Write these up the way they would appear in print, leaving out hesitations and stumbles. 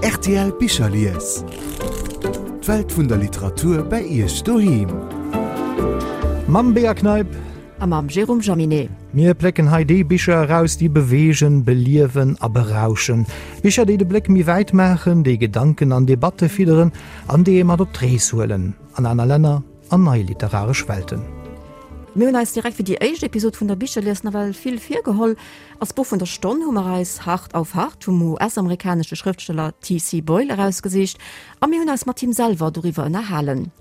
Rtl Bicherlies. D'Welt vun der Literatur bei Iech doheem. Mam Bea Kneip. A mam Jérôme Jaminet. Mir plécken hei déi Bicher eraus, déi beweegen, beliewen a berauschen. Bicher, déi de Bléck méi wäit maachen, déi Gedanken an Debatte fidderen an déi ee mat op d'Rees huelen an aner Länner, an nei literaresch Welten. Mir hunn eis direkt fir déi éischt Episod vun der Bicherlies nawell vill virgeholl. Als Buch vun der Stonn hu mer eis Hart auf Hart vum US-amerikanesche Schrëftsteller TC. Boyle erausgesicht a mir hunn eis mat him selwer doriwwer ënnerhalen.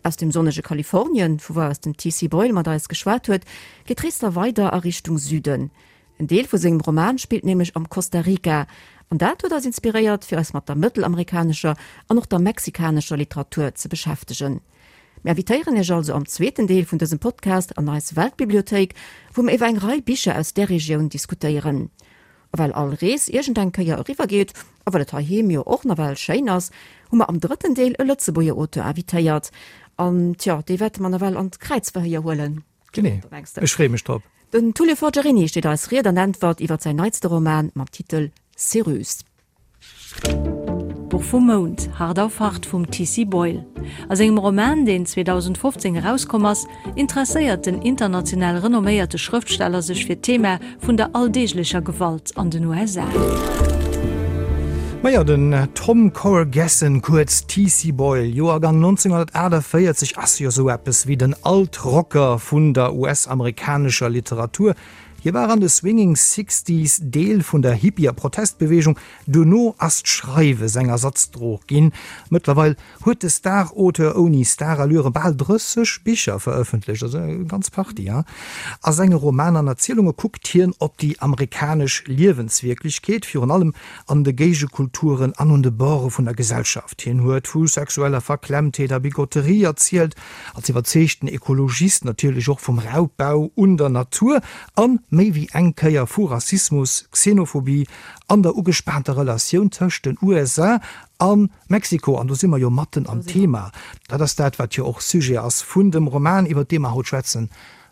Aus dem sonnege Kalifornien, vu wou aus den TC. Boyle mat eis geschwat huet, geet d'Rees da weider a Richtung Süden. En Deel vu sengem Roman spillt nämlech am Costa Rica, an dat huet eis inspiréiert, fir eis mat der mëttelamerikanescher an och der mexikanescher Literatur ze beschäftegen. Mir invitéieren Iech also am zweeten Deel vun dësem Podcast an eis Weltbibliothéik, wou mir iwwer eng Rei Bicher aus där Regioun diskutéieren. A well all Rees iergendeng Kéier eriwwer geet, a well et heiheem jo och nawell schéin ass, hu mer am drëtten Deel e Lëtzebuerger Auteur invitéiert. An, tjo, dee wäerte mer nawell an d'Kräizverhéier huelen. Genee, ech freeë mech drop. Den Tullio Forgiarini steet eis Ried an Äntwert iwwer säin neitste Roman mam Titel Céruse. Buch vum Mount, Hart auf Hart vum TC. Boyle. A sengem Roman, deen 2015 erauskomm ass, interesséiert den international renomméierte Schrëftsteller sech fir d'Thema vun der alldeeglecher Gewalt an den USA. Majo, den Tom Corgessen, kuerz TC Boyle, Joergang 1948, ass jo sou eppes wéi den Alt-Rocker vun der US-amerikanescher Literatur. Hie war an de Swinging Sixties Deel vun der Hippie a Protestbeweegung, duerno ass d'Schreiwe seng Ersatzdrog ginn. Mëttlerweil huet de Star-Auteur ouni Starallüre bal 30 Bicher verëffentlecht, also eng ganz Partie. A senge Romaner an Erzielunge kuckt hien op déi amerikanesch Liewenswierklechkeet, virun allem an de Géigekulturen an un de Borde vun der Gesellschaft. Hien huet vu sexueller Verklemmtheet a Bigotterie erzielt, Als iwwerzeegten Ekologist natierlech och vum Raubbau un der Natur an méi wéi eng Kéier vu Rassismus, Xenophobie an der ugespaanter Relatioun tëscht den USA a Mexiko. An do si mer jo matten am Thema. Dat ass dat, wat jo och Sujet ass vun dem Roman, iwwer dee mer haut schwätzen,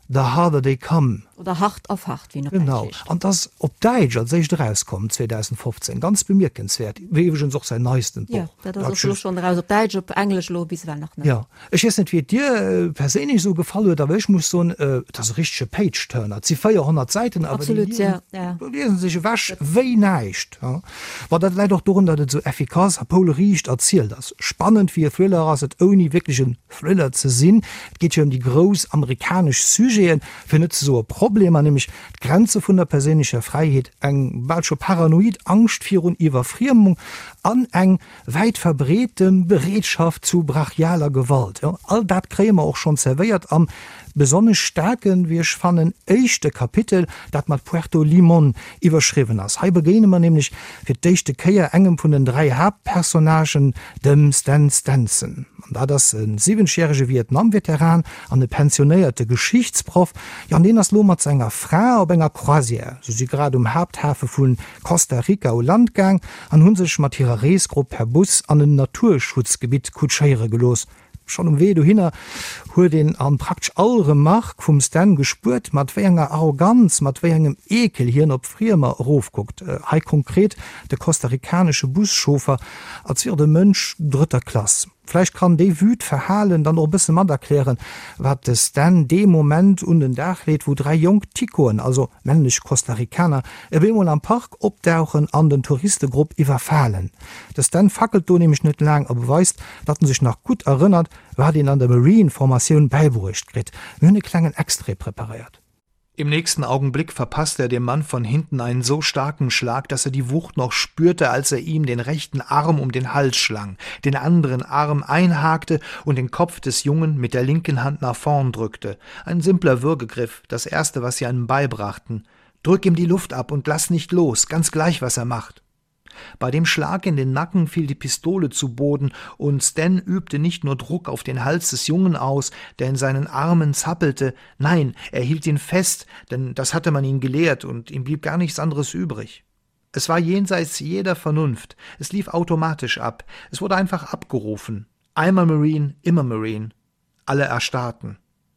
The Harder They Come. Oder Hart auf Hart, wéi en op Däitsch heescht. Genau. An 't ass op Däitsch als éischt erauskomm, 2015. Ganz bemierkenswäert. Wéi iwwregens och säin neistent Buch. Jo, dat ass och elo schonn eraus op Däitsch, op Englesch elo bis ewell nach net. Jo. Ech weess net, wéi et dir perséinlech esou gefall huet, awer ech muss soen, et ass e richtege Page-Turner. Et si 400 Säiten, awer déi liesen, déi liesen sech ewech wéi näischt. Bon, dat läit och dorun, datt et esou effikass a poulriicht erzielt ass. Spannend wéi e Thriller ass et, ouni wierklech en Thriller ze sinn. Et geet jo ëm déi grouss amerikanesch Sujeten, fir net ze soe Problemer, nämlech d'Grenze vun der perséinlecher Fräiheet, eng bal scho paranoid Angscht virun Iwwerfriemung an eng wäit verbreete Bereetschaft zu brachialer Gewalt. Jo, all dat kréie mer och schonn zerwéiert am besonnesch staarken, wéi ech fannen, éischte Kapitel, dat mat Puerto Limón iwwerschriwwen ass. Hei begéine mer nämlech fir d'éischte Kéier engem vun den 3 Haaptpersonnagen, dem Stan Stenson. An dat ass e siwwenzegjärege Vietnam-Veteran an e pensionéierte Geschichtsproff. Jo, an deen ass lo mat senger Fra op enger Croisière. Se si grad um Haapthafe vu Costa Rica u Land gaang an hu sech mat hirer Reesgrupp per Bus an en Naturschutzgebitt kutschéiere gelooss. Schonn um Wee dohinner huet een an praktesch all Remark vum Stan gespuert, mat wéi enger Arroganz, mat wéi engem Eekel hien op Friemer erofkuckt. Hei konkret de costa-ricanesche Buschauffer, als wier et e Mënsch drëtter Klass. Vläicht kann déi Wüt Verhalen dann och e bësse mat erklären, wat de Stan dee Moment un den Dag leet, wou 3 jonk Ticoen, also männlech Costa-Ricaner, op eemol am Park opdauchen an den Touristegrupp iwwerfalen. De Stan fackelt do nämlech net laang a beweist, datt en sech nach gutt erënnert, wat een an der Marine-Formatioun bäibruecht kritt. Mir hunn e klengen Extrait preparéiert. Im nächsten Augenblick verpasste er dem Mann von hinten einen so starken Schlag, dass er die Wucht noch spürte, als er ihm den rechten Arm um den Hals schlang, den anderen Arm einhakte und den Kopf des Jungen mit der linken Hand nach vorn drückte. Ein simpler Würgegriff, das erste, was sie einem beibrachten. Drück ihm die Luft ab und lass nicht los, ganz gleich, was er macht. Bei dem Schlag in den Nacken fiel die Pistole zu Boden und Stan übte nicht nur Druck auf den Hals des Jungen aus, der in seinen Armen zappelte, nein, er hielt ihn fest, denn das hatte man ihn gelehrt und ihm blieb gar nichts anderes übrig. Es war jenseits jeder Vernunft, es lief automatisch ab, es wurde einfach abgerufen. Einmal Marine, immer Marine. Alle erstarrten.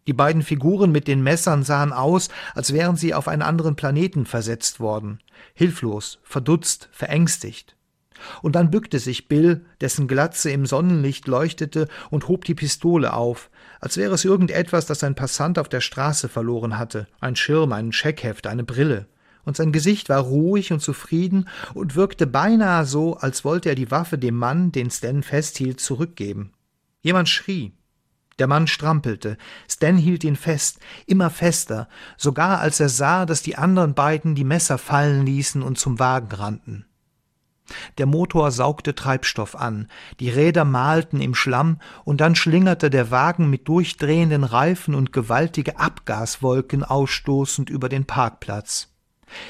Die beiden Figuren mit den Messern sahen aus, als wären sie auf einen anderen Planeten versetzt worden, hilflos, verdutzt, verängstigt. Und dann bückte sich Bill, dessen Glatze im Sonnenlicht leuchtete, und hob die Pistole auf, als wäre es irgendetwas, das ein Passant auf der Straße verloren hatte, ein Schirm, ein Scheckheft, eine Brille. Und sein Gesicht war ruhig und zufrieden und wirkte beinahe so, als wollte er die Waffe dem Mann, den Stan festhielt, zurückgeben. Jemand schrie. Der Mann strampelte. Stan hielt ihn fest, immer fester, sogar als er sah, dass die anderen beiden die Messer fallen ließen und zum Wagen rannten. Der Motor saugte Treibstoff an, die Räder malten im Schlamm, und dann schlingerte der Wagen mit durchdrehenden Reifen und gewaltige Abgaswolken ausstoßend über den Parkplatz.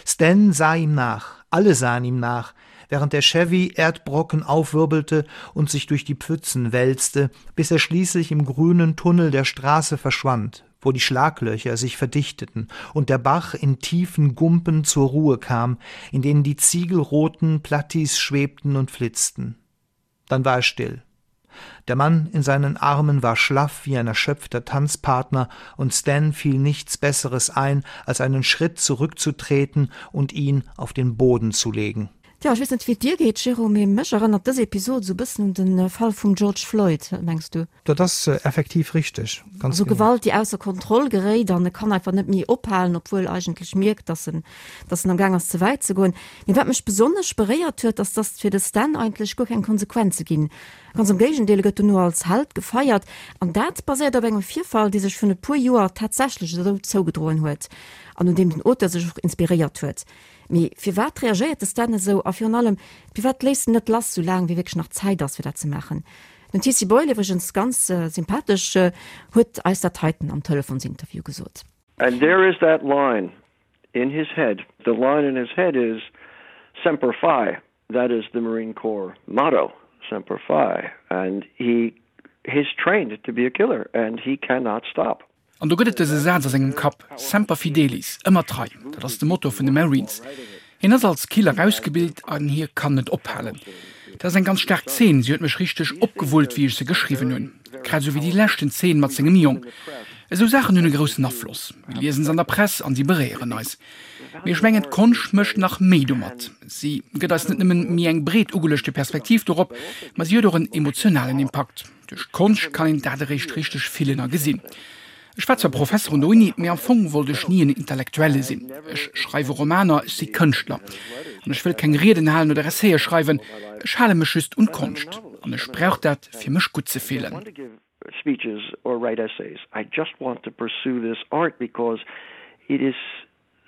Stan sah ihm nach, alle sahen ihm nach, während der Chevy Erdbrocken aufwirbelte und sich durch die Pfützen wälzte, bis er schließlich im grünen Tunnel der Straße verschwand, wo die Schlaglöcher sich verdichteten und der Bach in tiefen Gumpen zur Ruhe kam, in denen die ziegelroten Plattis schwebten und flitzten. Dann war er still. Der Mann in seinen Armen war schlaff wie ein erschöpfter Tanzpartner, und Stan fiel nichts Besseres ein, als einen Schritt zurückzutreten und ihn auf den Boden zu legen. Tja, ech weess net wéi et dir geet, Jérôme, mee mech erënnert dës Episod esou e bëssen un de Fall vum George Floyd. Wat mengs du? Dat ass effektiv richteg, ganz genau. Also Gewalt, déi ausser Kontroll geréit an e kann einfach net méi ophalen, obwuel eigentlech mierkt, dass en, dass en am Gaang ass ze wäit ze goen. Mee wat mech besonnesch beréiert huet, ass, dass fir de Stan eigentlech guer keng Konsequenze ginn. Ganz am Géigendeel, e gëtt dono als Held gefeiert. An dat baséiert op engem Virfall, dee sech virun e puer Joer tatsächlech esou zougedroen huet an un deem den Auteur sech och inspiréiert huet. Mee firwat reagéiert de Stan esou a virun allem, firwat léisst en net lass, soulaang wéi wierklech nach Zäit ass fir dat ze maachen? Den TC Boyle, iwwregens ganz sympathesch, huet eis dat heiten am Telefonsinterview gesot. And there is that line in his head, the line in his head is Semper Fi, that is the Marine Corps motto, Semper Fi, and he he's trained to be a killer and he cannot stop. An do gëtt et dëse Saz a sengem Kapp, Semper fidelis, ëmmer trei, dat ass de Motto vun de Marines. Hien ass als Killer ausgebilt an hie kann net ophalen. Dat ass eng ganz staark Zeen, si huet mech richteg opgewullt, wéi ech se geschriwwen hunn. Grad esou wéi déi leschten Zeen mat sengem Jong. Esou Saachen hunn e groussen Afloss. Mir liesen se an der Press an si beréieren eis. Mee ech mengen, d'Konscht mécht nach méi domat. Si gëtt eis net nëmmen méi eng breet ugeluechte Perspektiv dorop, ma si huet och en emotionalen Impakt. Duerch d'Konscht kann een dat eréischt richteg fillen a gesinn. Ech war zwar Professer un der Uni, mee am Fong wollt ech ni en Intellektuelle sinn. Ech schreiwe Romaner, ech si Kënschtler. An ech wëll keng Rieden halen oder Essaie schreiwen, ech hale mech just un d'Konscht. An ech brauch dat, fir mech gutt ze fillen.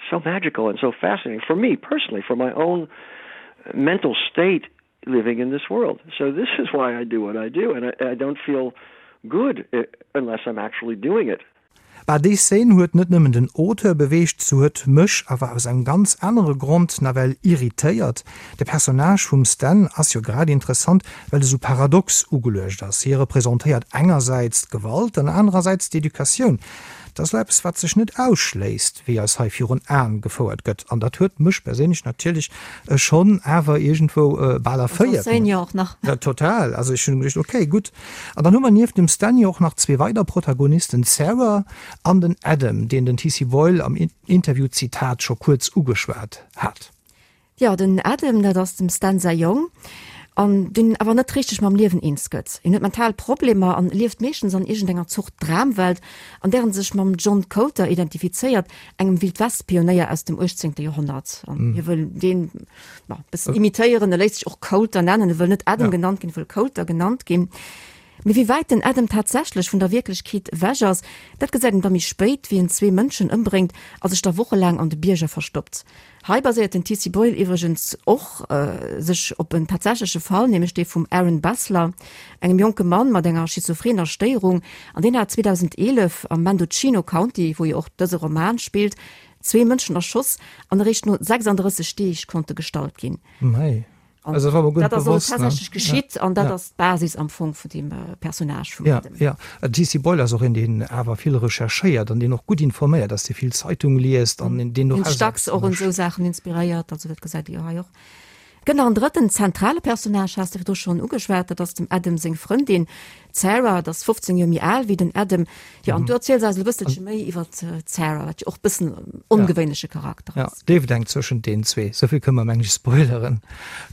So magical and so fascinating for me personally, for my own mental state living in this world. So this is why I do what I do and I, I don't feel good eh, unless I'm actually doing it. Bah, déi Szene huet net nëmmen den Auteur beweegt, se huet mech awer aus engem ganz anere Grond nawell irritéiert. De Personnage vum Stan ass jo grad interessant, well e sou paradox ugeluecht ass. Hie representéiert engersäits d'Gewalt an anerersäits d'Educatioun. Dat ass elo eppes, wat sech net ausschléisst, wéi eis hei virun Aen gefouert gëtt. An dat huet mech perséinlech natierlech schonn awer iergendwou bal erféiert. An jo och nach. Ja, total. Also ech hunn geduecht, okay, gutt. An dann hu mer nieft dem Stanley och nach zwee weider Protagonisten, d'Sarah an den Adam, deen den TC Boyle am Interview-Zitat scho kuerz ugeschwat hat. Jo, den Adam, dat ass dem Stan säi Jong, an deen awer net richteg mam Liewen eens gëtt. Hien huet mental Problemer an lieft meeschtens an iergendenger Zort Dramwelt, an där en sech mam John Colter identifizéiert, engem Wildwest-Pionéier aus dem 18. Joerhonnert. An hie wëll deen, ma, bëssen imitéieren. E léisst sech och Colter nennen, e wëll net Adam genannt ginn, e wëll Colter genannt ginn. Mee wéi wäit den Adam tatsächlech vun der Wierklechkeet ewech ass, dat gesäit een da méi spéit, wéi en zwee Mënschen ëmbréngt a sech da wochelaang an de Bierger verstoppt. Hei baséiert den TC Boyle iwwregens och sech op en tatsächleche Fall, nämlech dee vum Aaron Bessler, engem jonke Mann mat enger schizophrener Stéierung, an deen hat 2011 am Mendocino County, wou jo och dëse Roman spillt, zwee Mënschen erschoss an eréischt no 36 Deeg konnt e gestallt ginn. An also, dat war dat ass also tatsächlech geschitt an dat ass d'Basis am Fong vun deem Personnage vum Adam. Ja, ja. TC Boyle ass och een, deen awer vill recherchéiert an deen och gutt informéiert ass, dee vill Zeitung liest an deen och. Deen sech dacks och un esou Saachen inspiréiert, also dat gesäit ee jo hei och. Gëtt nach en drëtten zentrale Personnage, has de virdru schonn ugeschwat, dat ass dem Adam seng Frëndin, d'Sarah. Dat ass 15 Joer méi al wéi den Adam. Jo, an du erziels eis e bësselche méi iwwer d'Sarah, wat jo och e bëssen en ongewéinleche Charakter ass. Jo, d'Léift eng zwëschent deenen zwee, souvill kënne mer, meng ech, spoileren.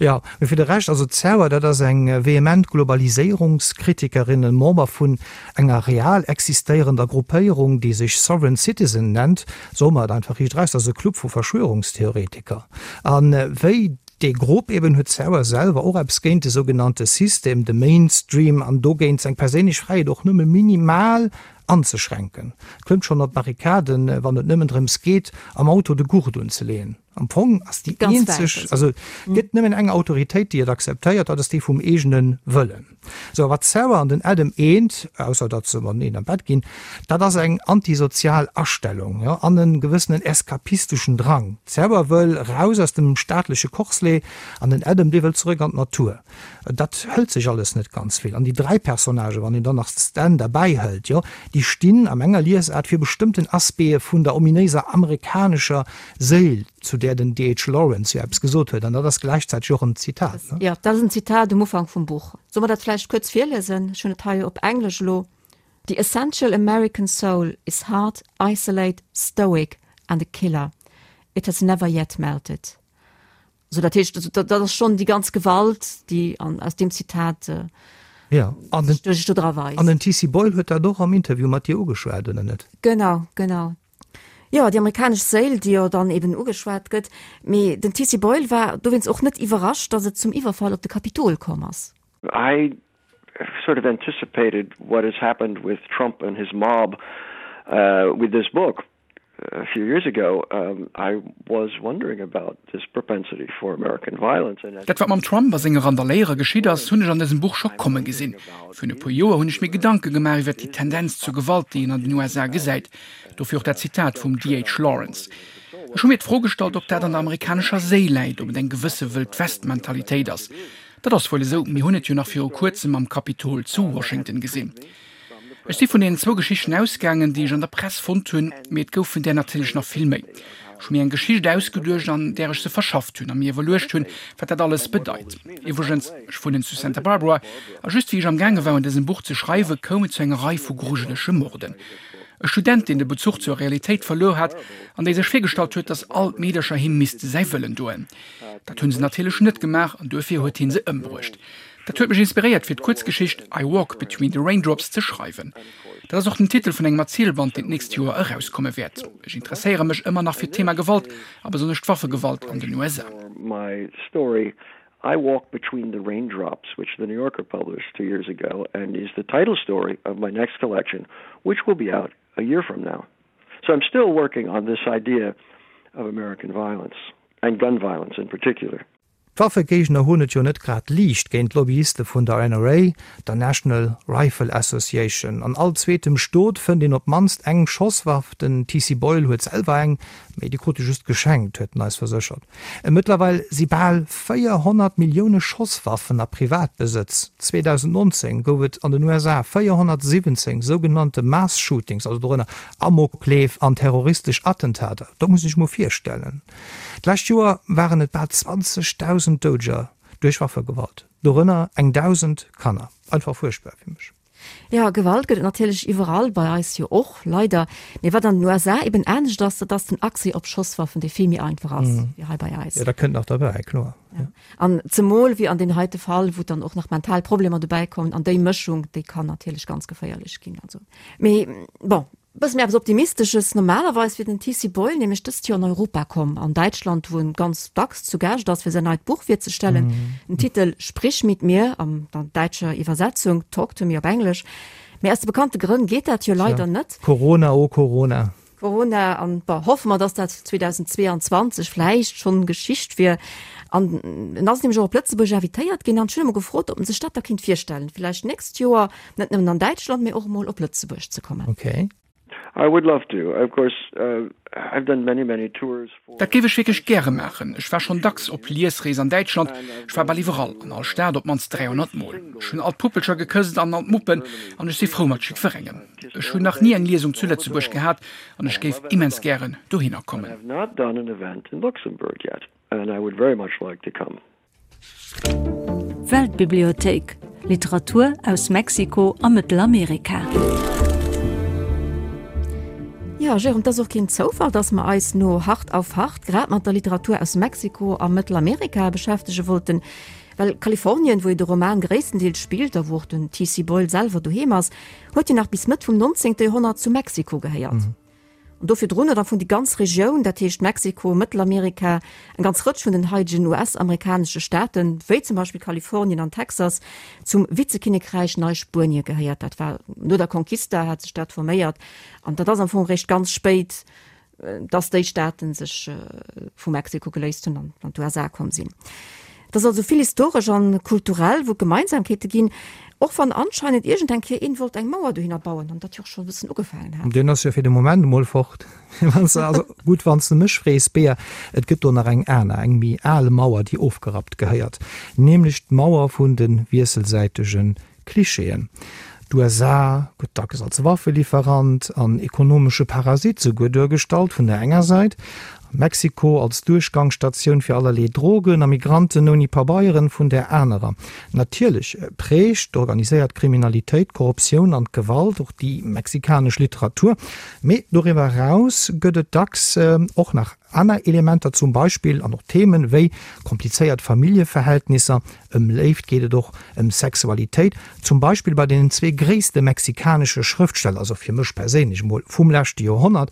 Jo, mee fir de Rescht, also d'Sarah, dat ass eng vehement Globaliséierungskritikerin, e Member vun enger real existéierender Gruppéierung, déi sech Sovereign Citizen nennt, soe mer et einfach riicht eraus, dat ass e Club vu Verschwörungstheoretiker. A wéi dee Grupp eben huet d'Sarah selwer och eppes géint de sougenannte System, de Mainstream, an dogéint seng perséinlech Fräiheet och nëmme minimal anzeschränken. Klëmmt schonn op d'Barrikaden, wann et nëmmen drëms geet, am Auto de Gurt unzeleeën. Am Fong ass déi eenzeg, also et gëtt nëmmen eng Autoritéit, déi et akzeptéiert, dat ass déi vum eegene Wëllen. Sou, a wat d'Sarah an den Adam eent, ausser datt se mateneen am Bett ginn, dat ass eng antisozial Astellung, jo, an e gewëssenen eskapisteschen Drang. D'Sarah wëll raus aus dem staatleche Corselet an den Adam, dee wëll zeréck an d'Natur. Dat hëlt sech alles net ganz vill. An déi 3 Personnagen, wann een dann nach d'Stan derbäi hëlt, jo, déi stinn a menger Liesaart fir bestëmmten Aspecte vun der ominéiser amerikanescher Séil, zu där den DH. Lawrence jo eppes gesot huet. An dat ass gläichzäiteg och en Zitat, ne? Jo, dat ass en Zitat um Ufank vum Buch. Solle mer dat vläicht kuerz virliesen? Ech hunn et hei op Englesch elo, The essential American soul is hard, isolate, stoic and a killer. It has never yet melted. So dat heescht, also, dat, dat ass schonn déi ganz Gewalt, déi an, aus deem Zitat äh, ja. an den, sech do dra weist. An den TC Boyle huet dat och am Interview mat dir ugeschwat, oder net? Genau, genau. Jo, déi amerikanesch Séil, déi jo dann eben ugeschwat gëtt. Mee den TC Boyle war dowéinst och net iwwerrascht, datt et zum Iwwerfall op de Kapitol komm ass. I sort of anticipated what has happened with Trump and his mob uh, with this book a few years ago, um, I was wondering about this propensity for American violence. And Dat wat mam Trump a senge Randaléierer geschitt ass, hunn ech an dësem Buch scho komme gesinn. Virun e puer Joer hunn ech mir Gedanke gemaach iwwer déi Tendenz zur Gewalt, déi een an den USA gesäit. Dofir och dat Zitat vum DH. Lawrence. Ech hu mir d'Fro gestallt, ob dat an der amerikanescher Séil läit, ob et eng gewësse Wëld-West-Mentalitéit ass. Dat ass wuel esou, mir hunn et jo nach viru kuerzem am Kapitol zu Washington gesinn. Ech si vun deenen zwou Geschichten ausgaangen, déi ech an der Press fonnt hunn, mee et goufen där natierlech nach vill méi. Ech hu mir eng Geschicht ausgeduecht, an där ech se verschafft hunn a mir iwwerluecht hunn, wat dat alles bedeit. Iwwregens, ech wunnen zu Santa Barbara, a just wéi ech amgaange war un dësem Buch ze schreiwen, koum et zu enger Rei vu grujelege Morden. E Student, deen de Bezuch zur Realitéit verluer hat an dee sech virgestallt huet, datt all d'Meedercher him misste säi Wëllen doen. Dat hunn se natierlech net gemaach an duerfir huet hie se ëmbruecht. Dat huet mech inspiréiert fir d'Kuerzgeschicht I Walk Between the Raindrops ze schreiwen. Dat ass och den Titel vun engem Erzielband, deen d'nächst Joer erauskomme wäert. Ech interesséiere mech ëmmer nach fir d'Thema Gewalt a besonnesch d'Waffegewalt an den USA. My story I Walk Between the Raindrops, which The New Yorker published two years ago and is the title story of my next collection, which will be out a year from now. So I'm still working on this idea of American violence and gun violence in particular. D'Waffegéigner hunn et jo net grad liicht géint d'Lobbyiste vun der NRA, der National Rifle Association. An all zweetem Stot fënnt een op d'mannst eng Schosswaff. Den TC Boyle huet selwer eng, mee déi krut e just geschenkt, huet en eis verséchert. Mëttlerweil si bal 400 Millioune Schosswaffen a Privatbesëtz. 2019 gouf et an den USA 417 sougenannte Mass Shootings, also dorënner Amokleef an terroristesch Attentater. Dat muss ee sech mol virstellen. D'lescht Joer waren et bal 20.000 Doudeger duerch Waffegewalt, dorënner eng 1.000 Kanner. Einfach fuerchtbar fir mech. Jo, Gewalt gëtt et natierlech iwwerall, bei eis jo och, leider. Mee wat an den USA eben anescht ass, dat ass den Accès op Schosswaffen, dee vill méi einfach ass wéi hei bei eis. Jo, dat kënnt nach derbäi, kloer. Ja. An zemol wéi an deem heite Fall, wou dann och nach mental Problemer dobäi kommen, an déi Mëschung, déi kann natierlech ganz geféierlech ginn. Also, mee bon, Bësse méi eppes Optimistesches, Normalerweis wier den TC Boyle nämlech dëst Joer an Europa komm, an Däitschland, wou en ganz dacks zu Gaascht ass, fir säin neit Buch virzestellen. Den Titel Sprich mit mir an der däitscher Iwwersetzung, Talk to me op Englesch. Mee aus de bekannte Grënn geet dat jo leider net. Corona, oh Corona. Corona, an bon, hoffe mer, dass dat 2022 vläicht schonn Geschicht wier. An en ass nämlech och op Lëtzebuerg invitéiert ginn an ech hunn e mol gefrot, ob en sech dat da kéint virstellen, vläicht d'nächst Joer Net nëmmen an Däitschland, mee och emol op Lëtzebuerg ze kommen. Okay. I would love to. Of course, I've done many, many tours for. Dat géif ech wierklech gäre maachen. Ech war schonn dacks op Liesrees an Däitschland. Ech war bal iwwerall, an all Stad op d'mannst 300 Mol. Ech hunn all d'Puppelcher gekësst an all d'Muppen an ech si frou mat jiddwerengem. Ech hunn nach ni eng Liesung zu Lëtzebuerg gehat an ech géif immens gären dohinner kommen. I have not done an event in Luxembourg yet and I would very much like to come. Weltbibliothéik, Literatur aus Mexiko a Mëttelamerika. Jo, Jérôme, et ass och keen Zoufall, dass mer eis no Hart auf Hart grad mat der Literatur aus Mexiko a Mëttelamerika beschäftege wollten. Well Kalifornien, wou jo de Roman gréisstendeels spillt a wou och den TC. Boyle selwer doheem ass, huet jo nach bis Mëtt vum 19. Joerhonnert zu Mexiko gehéiert. An do virdrun huet am Fong déi ganz Regioun, dat heescht Mexiko, Mëttelamerika, eng ganz Rëtsch vun den haidegen US-amerikanesche Staaten, wéi zum Beispill Kalifornien an Texas, zum Vizekinnekräich Neispuenie gehéiert. Dat war no der Conquista hat sech dat forméiert an dat ass am Fong eréischt ganz spéit, dass déi Staaten sech vu Mexiko geléist hunn an an d'USA komm sinn. Et ass also vill historesch an kulturell, wou et Gemeinsamkeete ginn, och wann anscheinend iergend eng Kéier een wollt eng Mauer dohinner bauen an dat jo och schonn e bëssen ugefaangen hat. Deen ass jo fir de Moment emol fort. Wann s de, also gutt, wann s de mech frees, Bea, et gëtt do nach eng aner, eng méi al Mauer, déi ofgerappt gehéiert, nämlech d'Mauer vun de wiesselsäitege Klischeeën. D'USA gëtt dacks als Waffelieferant an ekonomesche Parasit souguer duergestallt vun der enger Säit, a Mexiko als Duerchgangsstatioun fir allerlee Drogen a Migranten ouni Pabeieren vun där anerer. Natierlech prägt d'organiséiert Kriminalitéit, d'Korruptioun an d'Gewalt och déi mexikanesch Literatur, mee doriwwer eraus gëtt et dacks och nach aner Elementer, zum Beispill an och Themen wéi komplizéiert Familljeverhältnisser, Ëm Léift geet et och, ëm Sexualitéit, zum Beispill bei deenen zwee gréisste mexikanesche Schrëftsteller, also fir mech perséinlech emol, vum leschte Joerhonnert,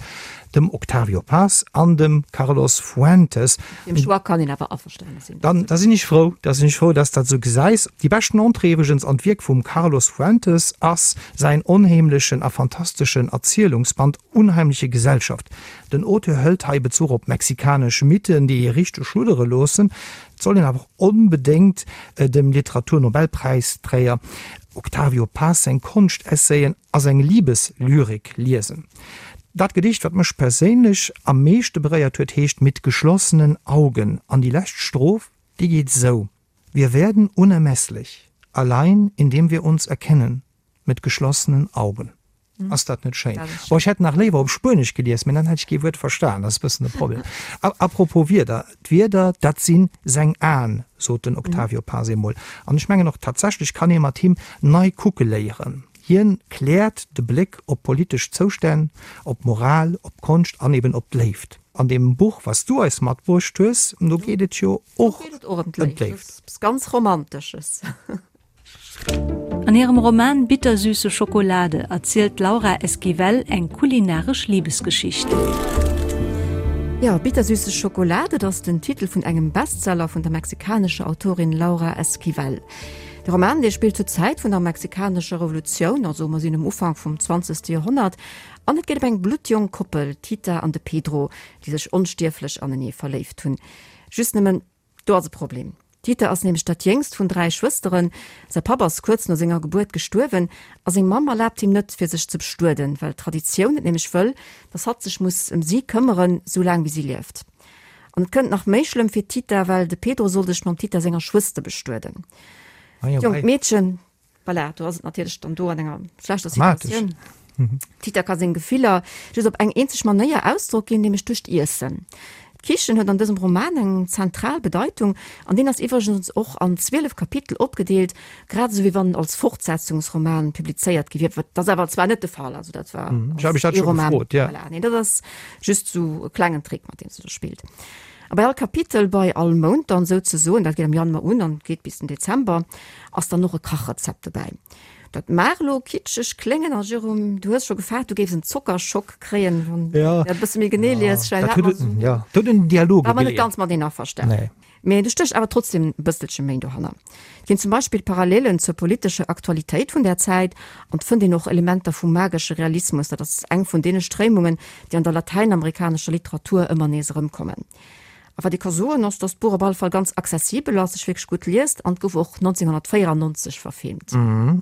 dem Octavio Paz an dem Carlos Fuentes. Deem Choix kann een awer averstane sinn. Dann, da sinn ech frou, da sinn ech frou, dass s dat esou gesäis. Déi beschten Entrée iwwregens an d'Wierk vum Carlos Fuentes ass säin onheemlechen a fantasteschen Erzielungsband Unheimliche Gesellschaft. Den Auteur hëlt hei Bezuch op mexikanesch Mythen, déi ee richteg schluddere loossen. Et soll een awer och onbedéngt dem Literaturnobelpräisträger Octavio Paz seng Konschtessayen a seng Liebeslyrik liesen. Dat Gedicht, wat mech perséinlech am meeschte beréiert huet, heescht Mit geschlossenen Augen an déi lescht Stroph, déi geet esou, Wir werden unermesslich, allein indem wir uns erkennen, mit geschlossenen Augen. Ass dat net schéin? Bon, ech hätt nach léiwer op Spuenesch gelies, mee dann hätt ech kee Wuert verstan. Dat ass e bëssen de Problem. A propos Wierder, D'Wierder, dat si seng Aen, sot den Octavio Paz eemol. An ech mengen och, tatsächlech kann ee mat him nei kucke léieren. Hien kläert de Bléck op politesch Zoustänn, op d'Moral, op d'Konscht an eben op d'Léift. An deem Buch, wat s du eis matbruecht hues, do geet et jo och ëm d'Léift. Eppes ganz Romantesches. An hirem Roman Bittersüße Schokolade erzielt d'Laura Esquivel eng kulinaresch Libesgeschicht. Jo, Bittersüße Schokolade, dat ass den Titel vun engem Bestseller vun der mexikanescher Autorin Laura Esquivel. De Roman, dee spillt zur Zäit vun der mexikanescher Revolutioun, also mer sinn um Ufank vum zwanzegste Joerhonnert, an et geet ëm eng bluttjonk Koppel, d'Tita an de Pedro, déi sech onstierflech anenee verléift hunn. Just nëmmen, Do ass e Problem. D'Tita ass nämlech dat jéngst vun 3 Schwësteren. Säi Papp ass kuerz no senger Gebuert gestuerwen a seng Mamm erlaabt him net, fir sech ze bestueden, well d'Traditioun et nämlech wëll, dass hatt sech muss ëm si këmmeren, sou laang wéi si lieft. An et kënnt nach méi schlëmm fir d'Tita, well de Pedro soll sech mam Tita senger Schwëster bestueden. D'jonkt Meedchen Voilà, do ass et natierlech dann do an enger schlechter Situatioun. D'Tita ka seng Gefiller just op eng eenzeg Manéier Ausdrock ginn, nämlech duerch d'Iessen. D'Kichen huet an dësem Roman eng zentral Bedeitung an deen ass iwwregens och an 12 Kapitel opgedeelt, grad esou wéi wann en als Fortsetzungsroman publizéiert gi wier. Dat ass awer zwar net de Fall, also dat war als ee Roman. Voilà, nee, dat ass just esou e klengen Trick, mat deem se do spillt. A bei all Kapitel, bei all Mount dann souzesoen, dat geet am Januar un an geet bis den Dezember, ass dann och e Kachrezept dobäi. Dat mag elo kitscheg kléngen a Jérôme, du hues scho gefaart, du géifs en Zockerschock kréien, wann du dat e bësse méi genee lies. Dat huet en, jo, dat huet en Dialoge War mer net ganz mateneen averstanen. Mee do stécht awer trotzdem e bësselche méi dohanner. Et ginn zum Beispill Parallelen zur politescher Aktualitéit vun där Zäit an et fënnt een och Elementer vum magesche Realismus, dat ass eng vun deene Stréimungen, déi an der latäinamerikanescher Literatur ëmmer nees erëmkommen. A wat ee ka soen, ass, datt d'Buch op alle Fall ganz accessibel ass, sech wierklech gutt liest an et gouf och 1994 verfilmt.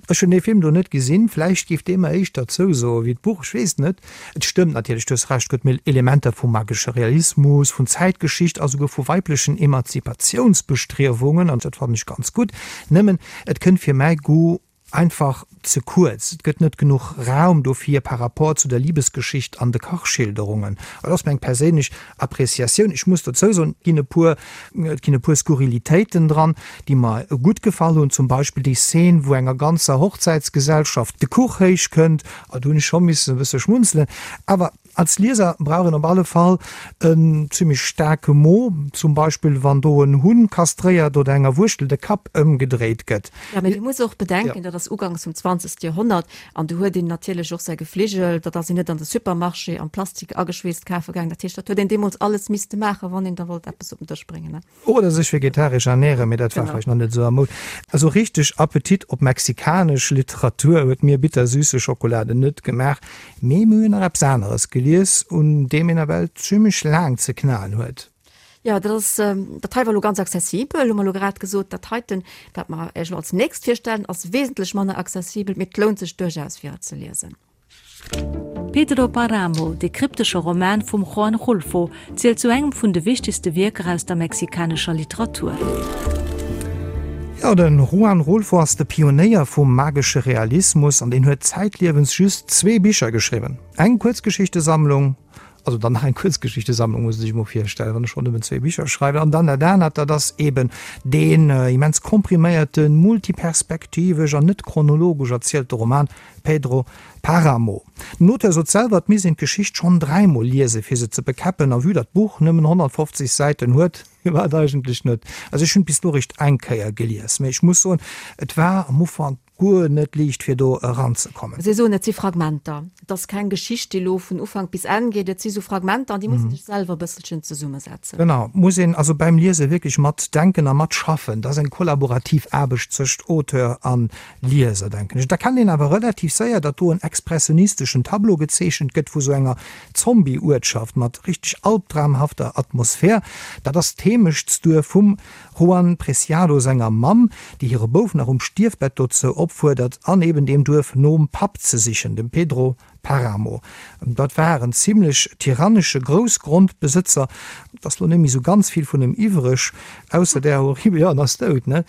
Ech hunn dee Film do net gesinn, vläicht géif dee mer éischter zousoe wéi d'Buch, ech weess et net. Et stëmmt natierlech, du hues Recht, gëtt méi Elementer vu magesche Realismus, vun Zäitgeschicht a souguer vu weiblechen Emanzipatiounsbestriewungen, an dat fannen ech ganz gutt. Nëmmen, et kënnt fir mäi Goût. Einfach ze kuerz, et gëtt net genuch Raum dofir par rapport zu der Libesgeschicht an de Kachschilderungen. Dat ass meng perséinlech Appreciatioun. Ech muss dozou soen, et ginn e puer, et ginn e puer Skurrilitéiten dran, déi mer gutt gefall hunn, zum Beispill déi Szene, wou enger ganzer Hochzäitsgesellschaft de Kuch héich kënnt, do hunn ech scho missen e bësse schmunzelen. Awer Als Lieser brauch een op alle Fall en zimmlech staarke Mo, zum Beispill wann do en Hunn kastréiert oder enger Wuerschtel de Kapp ëmgedréit gëtt. Jo, mee du muss och bedenken, dat ass uganks vum zwanzegste Joerhonnert an do huet een natierlech och säi Gefligel, dat ass een net an de Supermarché am Plastik ageschweesst kafe gaangen. Dat heescht, dat huet een deemools alles misste maachen, wann een da wollt eppes op den Dësch bréngen, ne. Oder sech vegetaresch ernären, mee dat war vläicht nach net esou a Moud. Esou richteg Appetit op mexikanesch Literatur huet mir Bittersüße Schokolade net gemaach, mee mir hunn nach eppes aneres gelies, un deem een ewell zimmlech laang ze knaen huet. Jo, dat ass, dat hei war elo ganz accessibel, hu mer elo grad gesot. Dat heiten, wat mer Iech elo als nächst virstellen, ass wesentlech manner accessibel, mee et lount sech duerchaus fir et ze liesen. Pedro Paramo, dee kryptesche Roman vum Juan Rulfo, zielt zu engem vun de wichtegste Wierker aus der mexikanescher Literatur. Jo, de Juan Rulfo ass de Pionéier vum magesche Realismus an deen huet zäitliewens just zwee Bicher geschriwwen, eng Kuerzgeschichtesammlung, also dann nach eng Kuerzgeschichtesammlung, muss ee sech emol virstellen, wann e schonn nëmmen zwee Bicher schreift, an dann dat anert, dat ass eben deen immens kompriméierten, multiperspektivesch an net chronologesch erzielte Roman Pedro Paramo. Den Auteur sot selwer, et misst een d'Geschicht schonn dräimol liesen, fir se ze bekäppen, a vue datt d'Buch nëmmen 150 Säiten huet, firwat eigentlech net? Also ech hunn et bis elo eréischt eng Kéier gelies, mee ech muss soen, et war am Ufank guer net liicht, fir do eranzekommen. Si soen, et si Fragmenter, et ass keng Geschicht, déi elo vun Ufank bis Enn geet, et si sou Fragmenter an déi muss ee sech selwer e bësselchen zesummesetzen. Genau, muss een also beim Liese wierklech matdenken a matschaffen. Dat ass eng kollaborativ Aarbecht zwëscht Auteur an Lieser, denken ech. Et erkennt een awer relativ séier, datt do en expressionisteschen Tableau gezeechent gëtt vu sou enger Zombie-Uertschaft mat richteg albdramhafter Atmosphär. Dat ass d'Heemechtsduerf vum Juan Preciado senger Mamm, déi hire Bouf nach um Stierfbett dozou opfuerdert, an eben deem Duerf nom Papp ze sichen, dem Pedro Paramo. Dat war en zimlech tyrannesche Groussgrondbesëtzer. Et ass lo net méi sou ganz vill vun em iwwreg, ausser där horribel, jo, en ass dout, ne?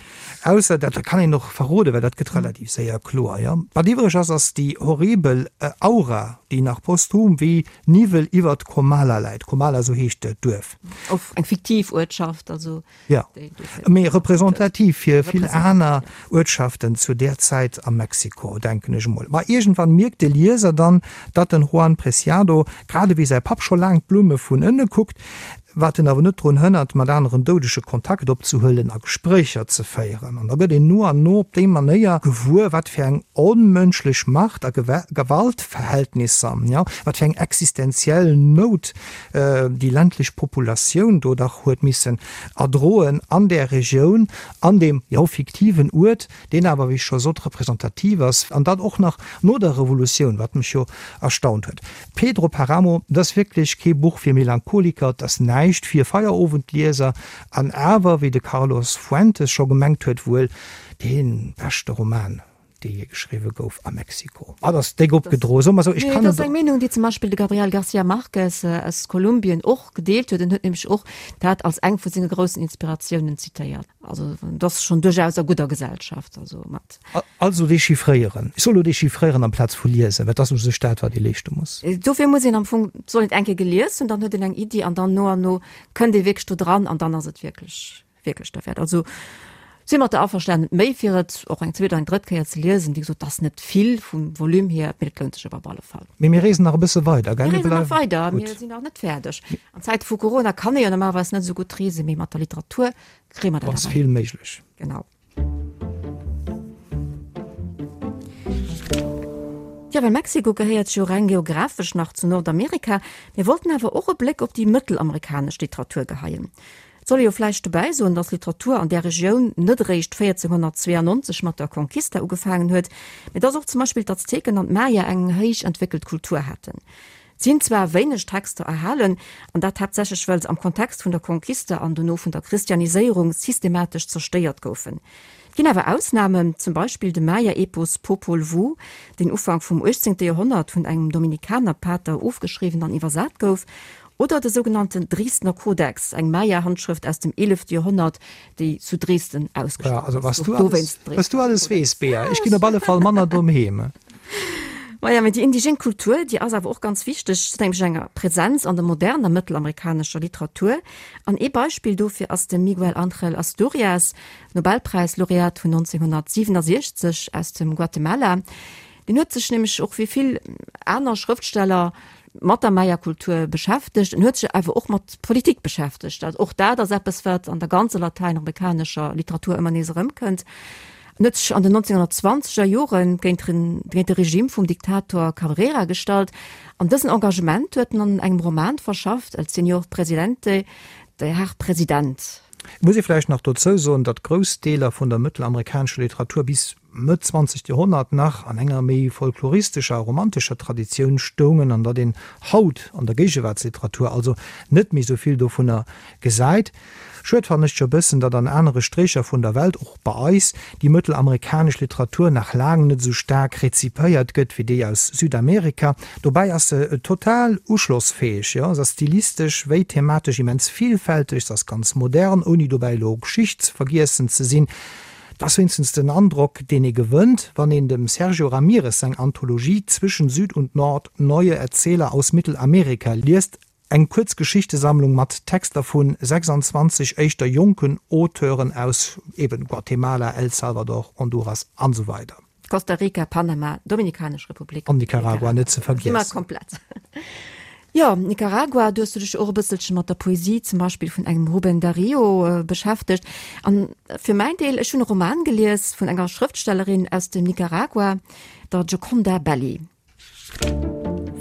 Ausser, dat kann een och verroden, well dat gëtt relativ séier kloer, jo. Wat iwwreg ass, ass déi horribel Aura, déi nach posthum wéi Niwwel iwwert Comala läit. Comala, sou heescht d'Duerf. Och eng fiktiv Uertschaft, also. Jo, mee representativ fir vill aner Uertschaften zu där Zäit a Mexiko, denken ech emol. Ma iergendwann mierkt de Lieser dann, datt den Juan Preciado, grad ewéi säi Papp, scho laang d'Blumme vun ënne kuckt, wat en awer net drun hënnert, mat aneren Doudege Kontakt opzehuelen a Gespréicher ze féieren. An da gëtt een no an no op déi Manéier gewuer, wat fir eng onmënschlech Macht a Gewaltverhältnisser, jo, wat fir eng existenziell Nout déi ländlech Populatioun do dach huet missen erdroen an där Regioun, an deem, jo, fiktiven Uert, deen awer, wéi ech scho sot, representativ ass, an dat och nach no der Revolutioun, wat mech jo erstaunt huet. Pedro Paramo, dat ass wierklech kee Buch fir Melancholiker, et ass näischt fir Feierowendlieser, an awer, wéi de Carlos Fuentes scho gemengt huet, wuel dee beschte Roman dee jee geschriwwe gouf a Mexiko. Ah, dat ass déck opgedroe, soe mer esou. Ech kann dat ass eng Meenung, déi zum Beispill de Gabriel García Márquez aus Kolumbien och gedeelt huet. En huet nämlech och dat als eng vu senge groussen Inspiratiounen zitéiert. Also dat ass schonn duerchaus a gudder Gesellschaft. Also mat. Also dechiffréieren. Ech soll elo dechiffréieren amplaz vu liesen, well dat ass u sech dat, wat ee leeschte muss. Dofir muss een am Fong, soll een et eng Kéier gelies hunn, dann huet een eng Iddi an dann no an no kënnt ee wierklech do dran an dann ass et wierklech. Wierklech derwäert. Also si mat der averstanen, méi fir et och eng zweet oder eng drëtt Kéier ze liesen. Wéi gesot, et ass net vill vum Volume hier, mee et lount sech awer op alle Fall. Mee mir reesen nach e bësse weider, gell? Mir reesen nach weider, mir sinn nach net fäerdeg. An Zäite vu Corona kann ee jo normalerweis net esou gutt reesen, mee mat der Literatur kréie mer dat awer hin. Ass vill méiglech. Genau. Jo, well Mexiko gehéiert jo reng geographesch nach zu Nordamerika. Mir wollten awer och e Bléck op déi mëttelamerikanesch Literatur geheien. Et soll ee jo vläicht dobäi soen, datt Literatur an där Regioun net eréischt 1492 mat der Conquista ugefaangen huet, mee datt och zum Beispill d'Azteken an d'Maya eng héich entwéckelt Kultur haten. Et sinn zwar wéineg Texter erhalen, an dat haaptsächlech well se am Kontext vun der Conquista an dono vun der Christianiséierung systematesch zerstéiert goufen. Et ginn awer Ausnamen, zum Beispill de Maya-Epos Popol Vuh, deen Ufank vum 18. Joerhonnert vun engem Dominikanerpater ofgeschriwwen an iwwersat gouf. Oder de sougenannten Dresdner Kodex, eng Maya-Handschrëft aus dem eelefte Joerhonnert, déi zu Dresden ausgestallt ass. Also was du alles, was du alles weess, Bea. Ech ginn op alle Fall manner domm heem. Maja, mee déi indigen Kultur, déi ass awer och ganz wichteg, se huet nämlech eng Präsenz an der moderner mëttelamerikanescher Literatur. An ee Beispill dofir ass de Miguel Ángel Asturias, Nobelpräislaureat vun 1967 aus dem Guatemala. Deen huet sech nämlech och wéi vill aner Schrëftsteller mat der Maya-Kultur beschäftegt. En huet sech awer och mat Politik beschäftegt. Dat och dat ass eppes, wat an der ganzer latäinamerikanescher Literatur ëmmer nees erëmkënnt. En huet sech an den 1920er Jore géint géint de Regime vum Diktator Cabrera gestallt. An dësen Engagement huet en an engem Roman verschafft, El Señor Presidente, Der Herr President. Et muss ee vläicht nach dozou soen, datt grouss Deeler vun der mëttelamerikanescher Literatur bis Mëtt zwanzegt Joerhonnert nach an enger méi folkloristescher a romantescher Traditioun stoungen an datt een haut an der Géigewaartsliteratur also net méi sou vill dovunner gesäit. Schued fannen ech jo bëssen, datt an anere Stréicher vun der Welt, och bei eis, déi mëttelamerikanesch Literatur nach laang net sou staark rezipéiert gëtt wéi déi aus Südamerika. Dobäi ass se total uschlossfäeg, jo, se ass stilistesch wéi thematesch immens villfälteg, se ass ganz modern, ouni dobäi elo geschichtsvergiessen ze sinn. Et ass wéinstens den Androck, deen ee gewënnt, wann een dem Sergio Ramirez seng Anthologie Zwischen Süd und Nord, Neue Erzähler aus Mittelamerika liest, eng Kuerzgeschichtesammlung mat Texter vu 26 éischter jonken Auteuren aus eben Guatemala, El Salvador, Honduras an esou weider. Costa Rica, Panama, Dominikanesch Republik an Nicaragua net ze vergiessen. Si mer komplett. Jo, Nicaragua, do hues du dech och e bësselche mat der Poesie zum Beispill vun engem Rubén Darío beschäftegt. An fir mäin Deel, ech hunn e Roman gelies vun enger Schrëftstellerin aus dem Nicaragua, der Gioconda Belli.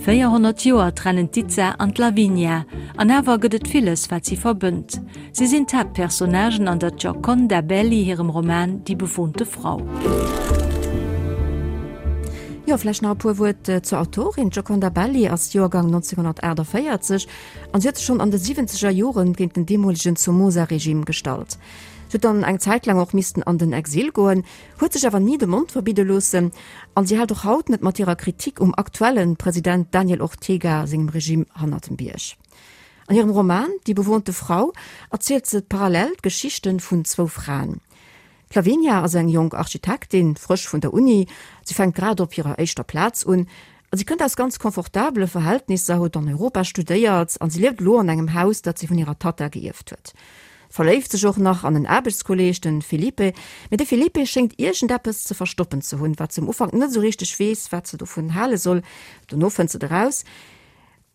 400 Joer trennen d'Itza an d'Lavinia, an awer gëtt et villes, wat si verbënnt. Si sinn d'Haaptpersonnagen an der Gioconda Belli hirem Roman Die bewohnte Frau. Jo, vläicht nach e puer Wuert zur Autorin. D'Gioconda Belli ass Joergang 1948 an si huet sech schonn an de siwwenzeger Joren géint den deemolegen Somoza-Regime gestallt. Si huet dann eng Zäit laang och missten an den Exil goen, huet sech awer ni de Mond verbidde loossen an si hält och haut net mat hirer Kritik um aktuelle President Daniel Ortega sengem Regime hannert dem Bierg. An hirem Roman Die bewohnte Frau erzielt se parallel d'Geschichte vun zwou Fraen. D'Lavinia ass eng jonk Architektin, frësch vun der Uni, si fänkt grad op hirer éischter Plaz un a si kënnt aus ganz confortabele Verhältnisser, huet an Europa studéiert an si lieft elo an engem Haus, dat si vun hirer Tatta geierft huet. Verléift sech och nach an en Aarbechtskolleeg, den Felipe. Mee de Felipe schéngt iergendeppes ze verstoppen ze hunn, wat se um Ufank net esou richteg weess, wat se dovun hale soll. Dono fënnt se et eraus.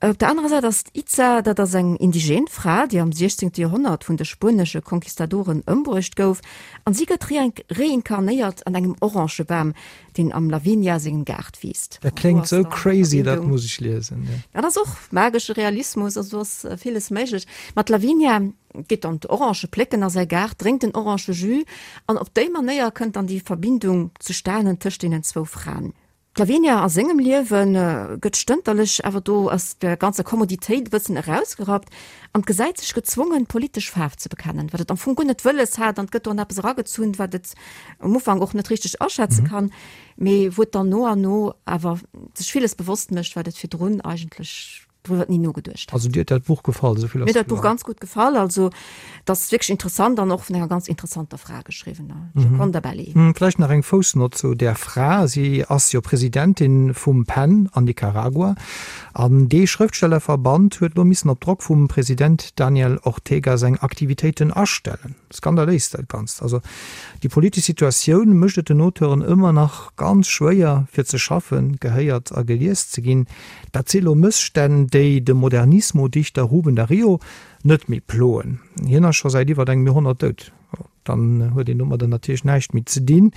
Op der anerer Säit ass d'Itza, dat ass eng indigen Fra, déi am 16. Joerhonnert vun de spuenesche Conquistadoren ëmbruecht gouf, an si gëtt reinkarnéiert an engem Orangebam, deen am Lavinia sengem Gaart wiisst. Dat kléngt sou crazy, dat muss ech liesen. Dat ass och magesche Realismus, also do ass villes méiglech. Ma d'Lavinia geet dann d'Orangë plécken a säi Gaart, drénkt den Orangejus an op déi Manéier kënnt dann déi Verbindung zustanen tëscht deenen zwou Fraen. D'Lavinia a sengem Liewe gëtt stënterlech awer do aus der ganzer Kommoditéit e bëssen erausgerappt an gesäit sech gezwongen, politesch Faarf ze bekennen, wat et am Fong guer net wëlles hat an et gëtt do an eppes eragezunn, wat et um Ufank och net richteg aschätze kann, mee wou et dann no an no awer sech villes bewosst mécht, wat et virdrun eigentlech driwwer ni nogeduecht hat. Also dir huet dat Buch gefall, esou vill ass kloer. Mir huet dat Buch ganz gutt gefall. Also et ass wierklech interessant an och vun enger ganz interessanter Fra geschriwwen, der Gioconda Belli. Vläicht nach eng Foussnott zu där Fra, Si ass jo Presidentin vum PEN an Nicaragua an dee Schrëftstellerverband huet elo missen op Drock vum President Daniel Ortega seng Aktivitéiten astellen. Skandaléis dat Ganzt. Also déi politesch Situatioun mécht et den Auteuren ëmmer nach ganz schwéier fir ze schaffen, gehéiert a gelies ze ginn. Dat si lo Mësstänn, déi de Modernismo-Dichter Ruben Darío net méi ploen. Hien ass scho säit iwwert engem Joerhonnert dout. Dann huet een domadder natierlech näischt méi ze dinn.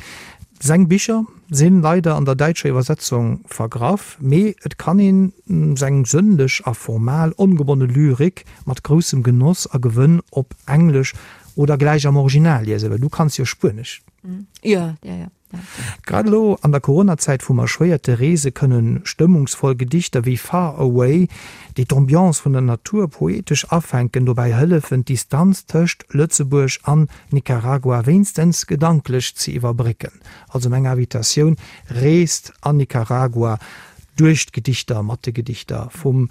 Seng Bicher si leider an der däitscher Iwwersetzung vergraff, mee et kann een seng sënnlech a formal ongebonne Lyrik mat groussem Genoss a Gewënn op Englesch oder gläich am Original liesen, well du kanns jo Spuenesch. Jo, jo, jo. Grad elo an der Coronazäit vum erschwéierte Reese kënne stëmmungsvoll Gedichter wéi Far Away, déi d'Ambiance vun der Natur poetesch afänken, dobäi hëllefen, d'Distanz tëscht Lëtzebuerg an Nicaragua wéinstens gedanklech ze iwwerbrécken. Also meng Invitatioun, Reest an Nicaragua duerch d'Gedichter, mat de Gedichter vum.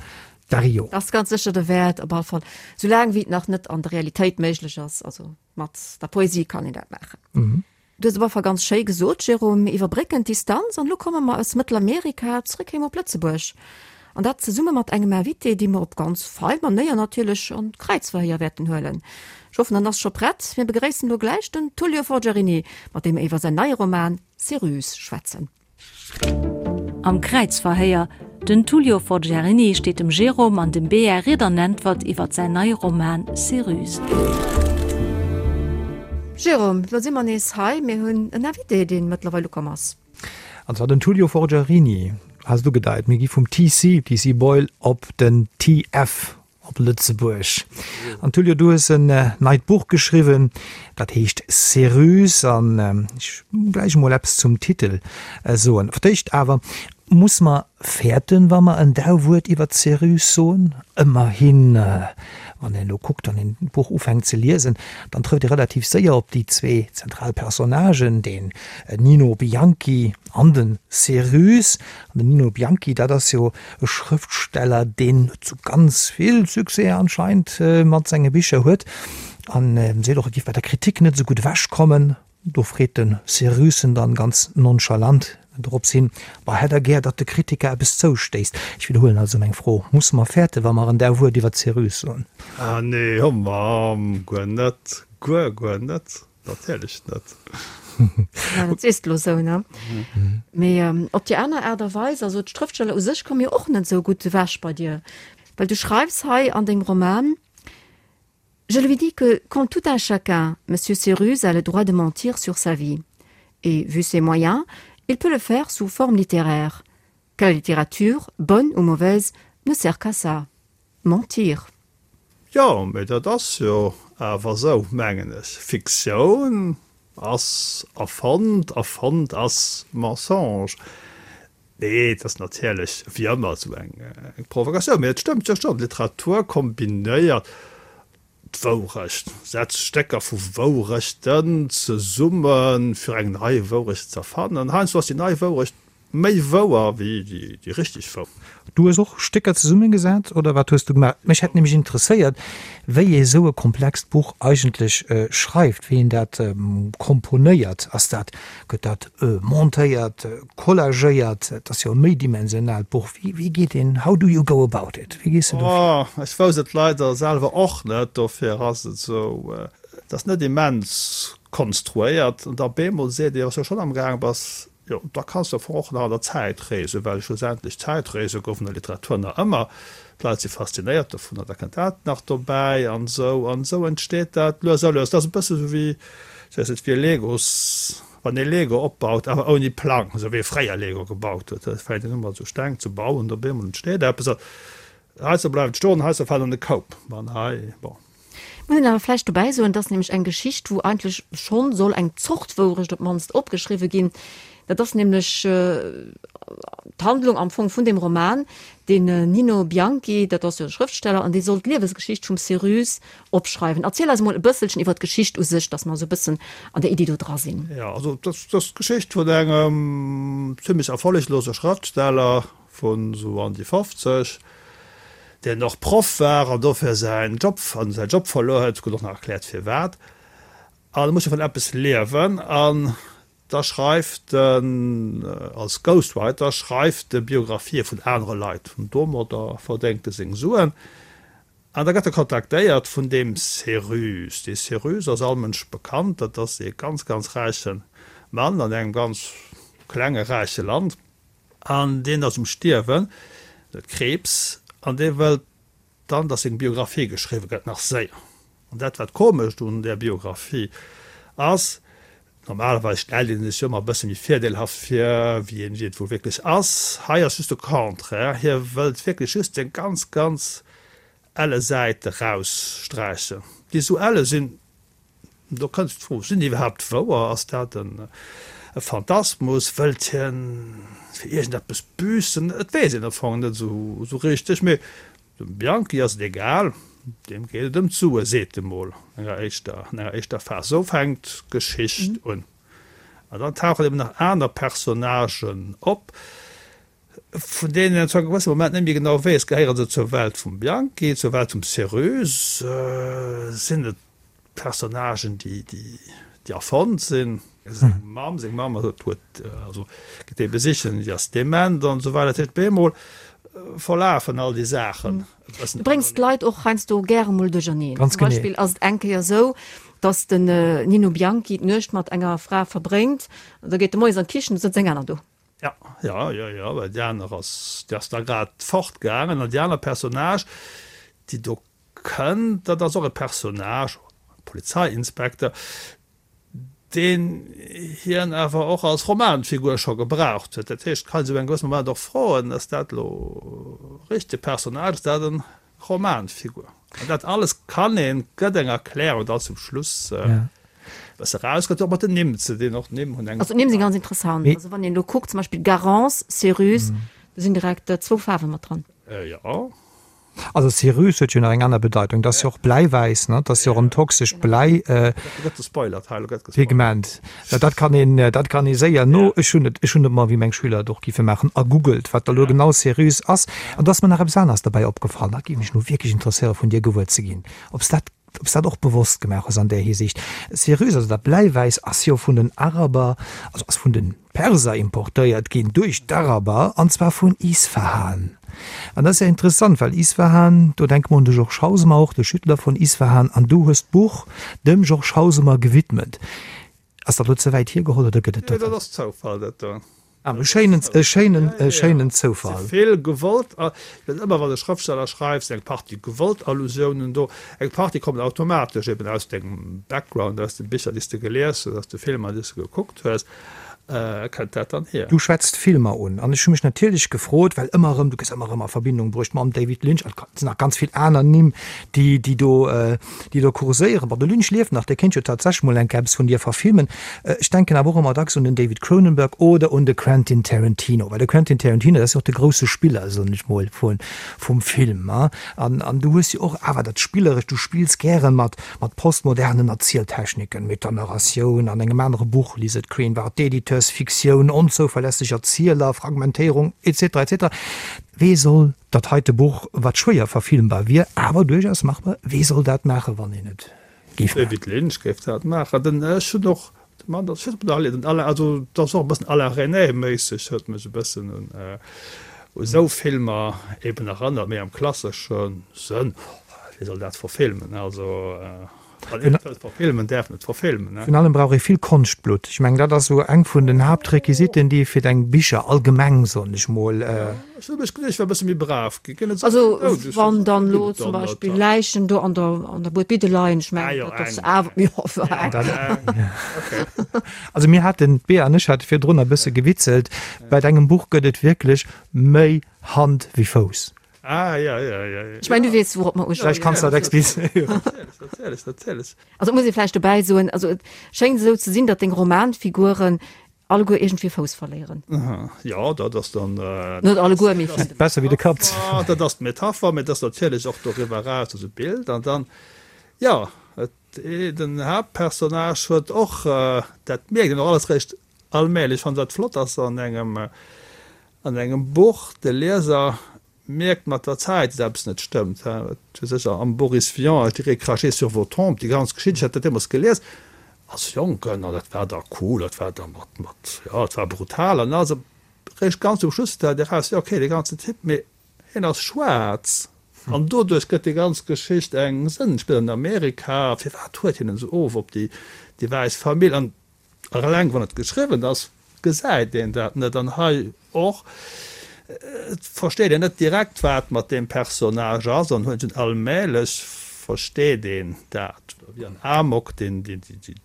Dario. Ass ganz sécher derwäert, op all Fall soulaang wéi et nach net an der Realitéit méiglech ass. Also mat der Poesie kann een dat maachen. Du hues op alle Fall ganz schéi gesot, Jérôme, mir iwwerbrécken d'Distanz an elo komme mer aus Mëttelamerika zréck heem op Lëtzebuerg. An dat zesumme mat engem Invité, dee mer op ganz fei Manéier natierlech an d'Kräizverhéier wäerten huelen. Ech hoffen, en ass scho prett. Mir begréissen elo gläich den Tullio Forgiarini, mat deem mer iwwer säin neie Roman Céruse schwätzen. Am Kräizverhéier, Den Tullio Forgiarini steet dem Jérôme an dem Bea Ried an Äntwert iwwert säin neie Roman Céruse. Jérôme, lo si mer nees hei. Mir hunn en Invité, dee mëttlerweil ukomm ass. An zwar den Tullio Forgiarini, has et ugedeit. Mir gi vum TC, TC Boyle, op den TF Op Lëtzebuerg. An Tullio, du hues en neit Buch geschriwwen, dat heescht Céruse. An ech muss gläich emol eppes zum Titel soen. Fir d'éischt awer, Muss mer fäerten, wa mer en Dauwuert iwwer d'Céruse soen? Ëmmerhin, wann een elo kuckt, wann een d'Buch ufänkt ze liesen, dann trëfft ee relativ séier op déi zwee zentral Personnagen, den Nino Bianchi an den Céruse. An den Nino Bianchi, dat ass jo E Schrëftsteller, deen net sou ganz vill Succès anscheinend mat senge Bicher huet an seet och, e giff bei der Kritik net sou gutt ewech kommen. Do freet de Cérusen dann ganz nonchalant dorops hin, Bah, hätt der gär, datt de Kritiker eppes zoustéisst? Ech widderhuelen also meng Fro, Musse mer fäerten, wa mer en där Wuert iwwer d'Céruse soen? Ah nee, ho Mamm, guer net, guer, guer net. Natierlech net. Ja, dat sees de lo sou, ne? Mee op déi aner Aart a Weis, also d'Schrëftsteller u sech komme jo och net esou gutt ewech bei dir, well du schreifs hei an dengem Roman, Je lui dis que, comme tout un chacun, Monsieur Céruse a le droit de mentir sur sa vie. Et, vu ses moyens, il peut le faire sous forme littéraire. Que la littérature, bonne ou mauvaise, ne sert qu'à ça, mentir. Jo, mee dat ass jo awer esou, mengen ech. Fiktioun ass erfonnt, erfonnt ass Mensonge. Nee, et ass natierlech wéi ëmmer esou eng Provokatioun, mee et stëmmt jo schonn, Literatur kombinéiert d'Wourecht, setzt Stécker vu Wourechten zesummen, fir eng nei Wourecht z'erfannen. Heiansdo ass déi nei Wourecht Méi wouer wéi déi richteg wouer. Du hues och Stécker zesummegesat, oder wat hues du gemaach? Mech hätt nämlech interesséiert, wéi ee sou e komplext Buch eigentlech schreift, wéi een dat komponéiert. Ass dat, gëtt dat montéiert, collagéiert? Et ass jo e méidimensionaalt Buch. Wéi, wéi geet een, how do you go about it? Wéi gees de do vir? Oh, ech wousst et leider selwer och net, dofir ass et esou, et ass net immens konstruéiert. An da bemol seet ee, wann s du schonn amgaang bass, Jo, da kanns de am Fong och nach an der Zäit reesen, well schlussendlech Zäitreese goufen an der Literatur nach ëmmer. D'Leit si faszinéiert dovunner, da kënnt dat nach dobäi an esou. An esou entsteet dat lues a lues. Dat ass e bësse sou wéi, ech weess net, wéi e Legos, wann ee Lego opbaut, awer ouni Plang, esou wéi ee fréier Lego gebaut huet. Et fänkt een u mat esou Steng ze bauen, op eemol entsteet eppes. Heiansdo bleift et stoen, heiansdo fält an de Koup. An hei, bon. Muss een awer vläicht dobäi soen, et ass nämlech eng Geschicht, wou eigentlech schonn soll eng Zort Wourecht op d'mannst opgeschriwwe ginn. Dat ass nämlech d'Handlung am Fong vun deem Roman. Den Nino Bianchi, dat ass jo e Schrëftsteller, an dee soll d'Liewesgeschicht vum Céruse opschreiwen. Erziel eis emol e bësselchen iwwer d'Geschicht u sech, dass mer esou e bëssen an der Iddi do dra sinn. Jo, also dat ass d'Geschicht vun engem zimmlech erfolleglose Schrëftsteller, vun sou an déi 50, deen och Proff war an dofir säin Job, an säin Job verluer huet, gëtt och nach erkläert firwat, an e muss jo vun eppes liewen, an da schreift en als Ghostwriter schreift e Biographië vun anere Leit, an domadder verdéngt e seng Suen, an da gëtt e kontaktéiert vun deem Céruse. Dee Céruse ass all Mënsch bekannt, dat ass ee ganz, ganz räiche Mann an engem ganz klenge räiche Land. An deen ass um Stierwen, huet Kriibs, an dee wëllt dann, datt seng Biographie geschriwwe gëtt, nach séier. An dat, wat komescht un där Biographie ass, normalerweis stellt ee sech jo ëmmer e bësse méi virdeelhaft vir, wéi een et wuel wierklech ass. Hei ass just de Contraire, hie wëllt wierklech just seng ganz, ganz elle Säite raussträichen, déi esou elle sinn, Do kënnt d'Fro, Sinn déi iwwerhaapt wouer? Ass dat e Phantasmus? Wëllt hien fir iergendeppes büssen? Et weess een am Fong net esou richteg. Mee dem Bianchi ass et egal, deem geet et ëm d'Sue, seet e mol an enger éischter, an enger éischter Phas. Esou fänkt d'Geschicht un. An dann tauchen eben nach aner Personnagen op. Vun deenen een zu engem gewësse Moment net méi genau weess, gehéiere se zur Welt vum Bianchi, zur Welt vum Céruse, sinn et Personnagen, déi erfonnt sinn. Seng Mamm, seng Mamm huet, also geet ee besichen, déi ass dement an esou weider. Dat heescht, op eemol verlafen all déi Saachen e bëssen. Du bréngs d'Leit och heiansdo gäre mol duercherneen. Zum Beispill ass et eng Kéier esou, datt den Nino Bianchi d'Nuecht mat enger Fra verbréngt, an da geet e moies an d'Kichen, do sëtzt eng aner do. Ja, ja, jo, jo, well déi aner ass, déi ass da grad fortgaangen. An déi aner Personnage, déi do kënnt, dat ass och e Personnage, e Polizeiinspekter, deen hien awer och als Romanfigur scho gebraucht huet. Dat heescht, et kann ee sech op engem gewëssene Moment och froen, Ass dat elo e richtege Personnage, ass dat e Romanfigur. An dat alles kann een, gëtt eng Erklärung dann zum Schluss bësse raus, gëtt och mat den Nimm ze dinn, och d'Nimm hunn eng. Also d'Nimm si ganz interessant. Also wann een elo kuckt, zum Beispill Garance, Céruse, do sinn direkt zwou Faarwe mat dran. Jo. Also Céruse huet jo nach eng aner Bedeitung, dat ass jo och Bläiwäiss, ne? Dat ass jo och en toxescht Bläi. Gëtt gespoilert hei, elo gëtt gespoilert. Pigment. Dat kann een, dat kann ee séier no, ech hunn et, ech hunn et mol, wéi meng Schüler et och giffe maachen, ergoogelt, wat da lo genau Céruse ass. An do ass mer nach eppes aneres derbäi opgefall, dat géif mech nu wierklech interesséiere vun dir gewuer ze ginn, ob s dat, ob s dat och bewosst gemaach hues an där Hisiicht. Céruse, also dat Bläiwäiss, ass jo vun den Araber, also ass vun de Perser importéiert ginn duerch d'Araber, an zwar vun Isfahan. An dat ass ja interessant, well Isfahan, do denke mer un de Georges Hausemer och, de Schüttler von Isfahan, an du hues d'Buch dem Georges Hausemer gewidmet. Ass dat elo ze wäit hiergeholl oder gëtt et dat? Nee, dat ass Zoufall, dat do. Ah, e schéinen, e schéinen, e schéinen Zoufall. Si vill gewollt, ëmmer wann e Schrëftsteller schreift, sinn eng Partie gewollt Allusiounen do, eng Partie kommen automatesch eben aus dengem Background, aus de Bicher, déi s de gelies hues, aus de Filmer, déi s de gekuckt hues. Kënnt dat dann hier? Du schwätzt Filmer un an ech hu mech natierlech gefrot, well ëmmer erëm, du gëss ëmmer erëm a Verbindung bruecht mam David Lynch, et sinn nach ganz vill aner Nimm, déi, déi do, déi do kurséieren. Bon, de Lynch lieft nach, dee kéint jo tatsächlech mol eng Kéier eppes vun dir verfilmen. Ech denken awer och ëmmer dacks un den David Cronenberg oder un de Quentin Tarantino, well de Quentin Tarantino, dat ass jo och de grousse Spiller, soen ech mol, vu, vum Film. An, an du hues jo och awer dat Spillerescht, du spills gäre mat, Mat postmodernen Erzieltechniken, Metanarratioun, an engem anere Buch, Lisette Crane, war d'Editeursfiktioun, onzouverlässeg Erzieler, Fragmentéierung, etc. Etc. Wee soll dat heite Buch, wat schwéier verfilmbar wier, awer duerchaus machbar, wee soll dat maachen, wann een et géif maachen? David Lynch géif dat maachen. Den, ech hunn och de Mann, dat ass den Alain, also dat ass och e bëssen Alain Resnais-méisseg, huet mech e bëssen un u sou Filmer eben erënnert, méi am klassesche Sënn. Wie soll dat verfilmen? Also wann een et wëllt verfilmen, däerf en et verfilmen. Virun allem brauch ee vill Konschtblutt. Ech mengen, dat ass esou eng vun den Haaptrequisiten, déi ee fir deng Bicher allgemeng, soen ech mol. Ech hu mech geduecht, ech wär e bësse méi brav ginn. Ginn et esou vill Doudeg? Also wann dann elo zum Beispill Läichen do an der an der Buedbidde leien, ech mengen, dat ass awer, jo, eng. Also mir haten, d'Bea an ech hate virdrun e bësse gewitzelt, bei dengem Buch gëtt et wierklech méi Hand wéi Fouss. Ah, ja, ja, ja, ja. Ech mengen, du weess, wourop mer uspillen. Vläicht kanns de dat explizéieren. Natierlech, natierlech, natierlech. Also et muss ee vläicht dobäi soen, also et schéngt esou ze sinn, datt deng Romanfiguren alleguer iergendwéi Fouss verléieren. Jo, dat ass dann. Net alleguer, mee vill. Besser wéi de Kapp. Dat ass d'Metapher, mee et ass natierlech och doriwwer eraus esou d'Bild. An dann, jo, et, den Haaptpersonnage huet och, dat mierkt een och alles réischt allmählech, ech fannen dat flott ass an engem, an engem Buch, de Lieser mierkt mat der Zäit, datt eppes net stëmmt. Et huet sech am Boris Vian, Je dirais cracher sur vos tombes, déi ganz Geschicht, ech hat dat deemools gelies als Jonken an dat war da cool, dat war da mat, mat, jo, et war brutal an also réischt ganz um Schluss fält eraus, jo okay, dee ganzen Typ, mee hien ass schwaarz an doduerch gëtt déi ganz Geschicht eng Sënn, spillt an Amerika, firwat huet hien esou of op déi, déi wäiss Famill an Eleng wann et geschriwwen ass, gesäit een dat net. An hei och, et versteet een net direkt, wat mat deem Personnage ass, an huet en allmählech versteet een dat. Wéi an Amok, deen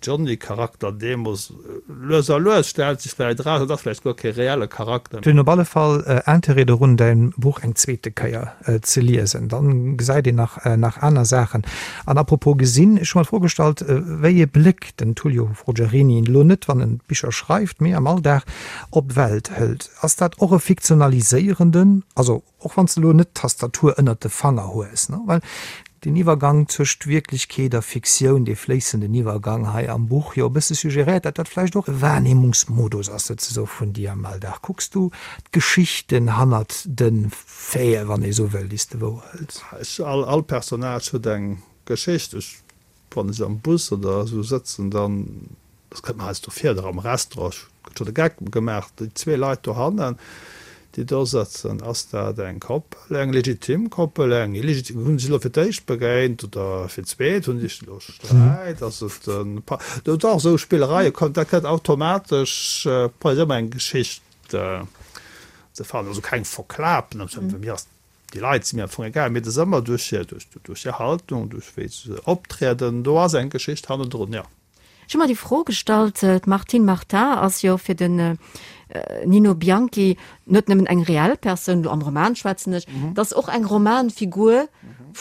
Johnny-Charakter deemoos, lues a lues stellt sech vläicht eraus, et ass vläicht guer kee reelle Charakter. Et hunn op alle Fall Interêt dorun, däin Buch eng zweete Kéier ze liesen. Dann gesäit een nach nach aner Saachen. An apropos gesinn, ech hu mer d'Fro gestallt, wéi ee Bléck den Tullio Forgiarini, elo net wann en Bicher schreift, mee am Alldag, op d'Welt hëlt. Ass dat och e fiktionaliséierenden, also och wann s de elo net d'Tastatur ënnert de Fanger hues, ne, well. Den Iwwergang zwëscht Wierklechkeet a Fiktioun, dee fléissenden Iwwergang hei am Buch, jo e bësse suggeréiert, datt dat vläicht och e Wahrnehmungsmodus ass souzesoe vun dir am Alldag. Kucks du d'Geschichten hannert de Faiten, wann ee sou wëll, déi s de wouerhëls? Ech, all, all Personnage huet eng Geschicht. Ech, wann ech am Bus oder esou sëtzen, dann, dat kënnt mer heiansdo vir, oder am Restaurant, ech gëtt scho de Geck gemaach, déi zwee Leit dohannen, déi do sëtzen, ass dat eng Koppel, eng legitim Koppel, eng illegitim, hunn se sech elo fir d'éischt begéint oder fir d'zweet, hunn se sech elo sträit, ass et e Pa, do dach esou Spillereie kommen, dat gëtt automatesch, brauch ëmmer eng Geschicht ze fannen, also keng verklapen, fir mir ass Déi Leit si mir am Fong egal, mee et ass ëmmer duerch hir, duerch hir Haltung, duerch wéi se optrieden, do ass eng Geschicht hannendrun, jo. Ech hu mer déi Fro gestallt, d'Martine Martin ass jo fir den Nino Bianchi net nëmmen eng reell Persoun, elo am Roman schwätzen ech, et ass och eng Romanfigur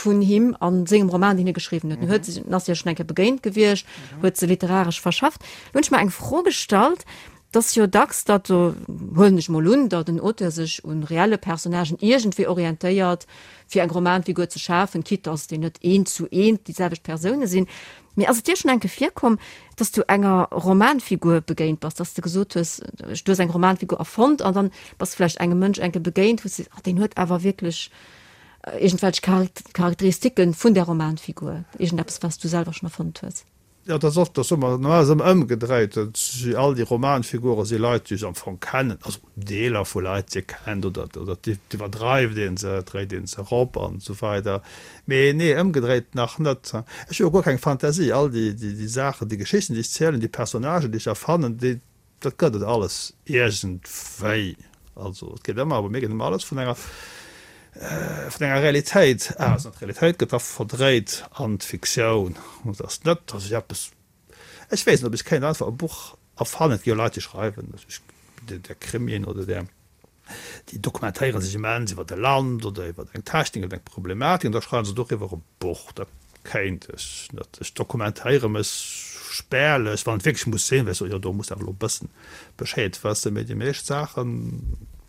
vun him a sengem Roman, deen hie geschriwwen huet. En huet se, en ass hir schonn eng Kéier begéint gewiescht, huet se literaresch verschafft. Lo hunn ech mer eng Fro gestallt, Et ass jo dacks, datt, huelen ech mol un, datt en Auteur sech un reelle Personnagen iergendwéi orientéiert, fir eng Romanfigur ze schafen, quitte datt déi net eent zu eent déi selwecht Persoune sinn. Mee ass et dir schonn eng Kéier virkomm, datt s du enger Romanfigur begéint bass, datt s de gesot hues, du hues eng Romanfigur erfonnt an dann bass de vläicht engem Mënsch eng Kéier begéint, wou s de sees, ah deen huet awer wierklech iergendwelch Charakteristiken vun där Romanfigur, iergendeppes wat s du selwer schonn erfonnt hues? Jo, dat ass oft, dat soe mer, normalerweis ëmmer ëmgedréit. Et si all déi Romanfigure si Leit, déi ech am Fong kennen, also Deeler vu Leit, déi ee kennt, oder oder et iwwerdreift ee se, et dréit ee se erop an esou weider. Mee nee, ëmgedréit nach net. Ech hu jo guer keng Fantasie. All déi déi Saachen, déi Geschichten, déi ech zielen, déi Personnagen, déi ech erfannen, déi, Dat gëtt et alles iergendwéi. Also et geet ëmmer, bei mir geet ëmmer alles vun enger, vun enger Realitéit aus. An d'Realitéit gëtt da verdréit an d'Fiktioun. Et ass net, datt ech eppes, ech weess net, ob ech kéint einfach e Buch erfannen. Et gi jo Leit, déi schreiwen, där Krimien oder där. Déi dokumentéiere sech immens iwwer e Land oder iwwer eng Technik oder eng Problematik an da schreiwe se doriwwer e Buch. Dat kéint ech net. Ech dokumentéiere mech spärlech, wann et wierklech muss sinn, well ech soen, jo do muss de awer elo e bëssen Bescheed wëssen. Mee déi meescht Saache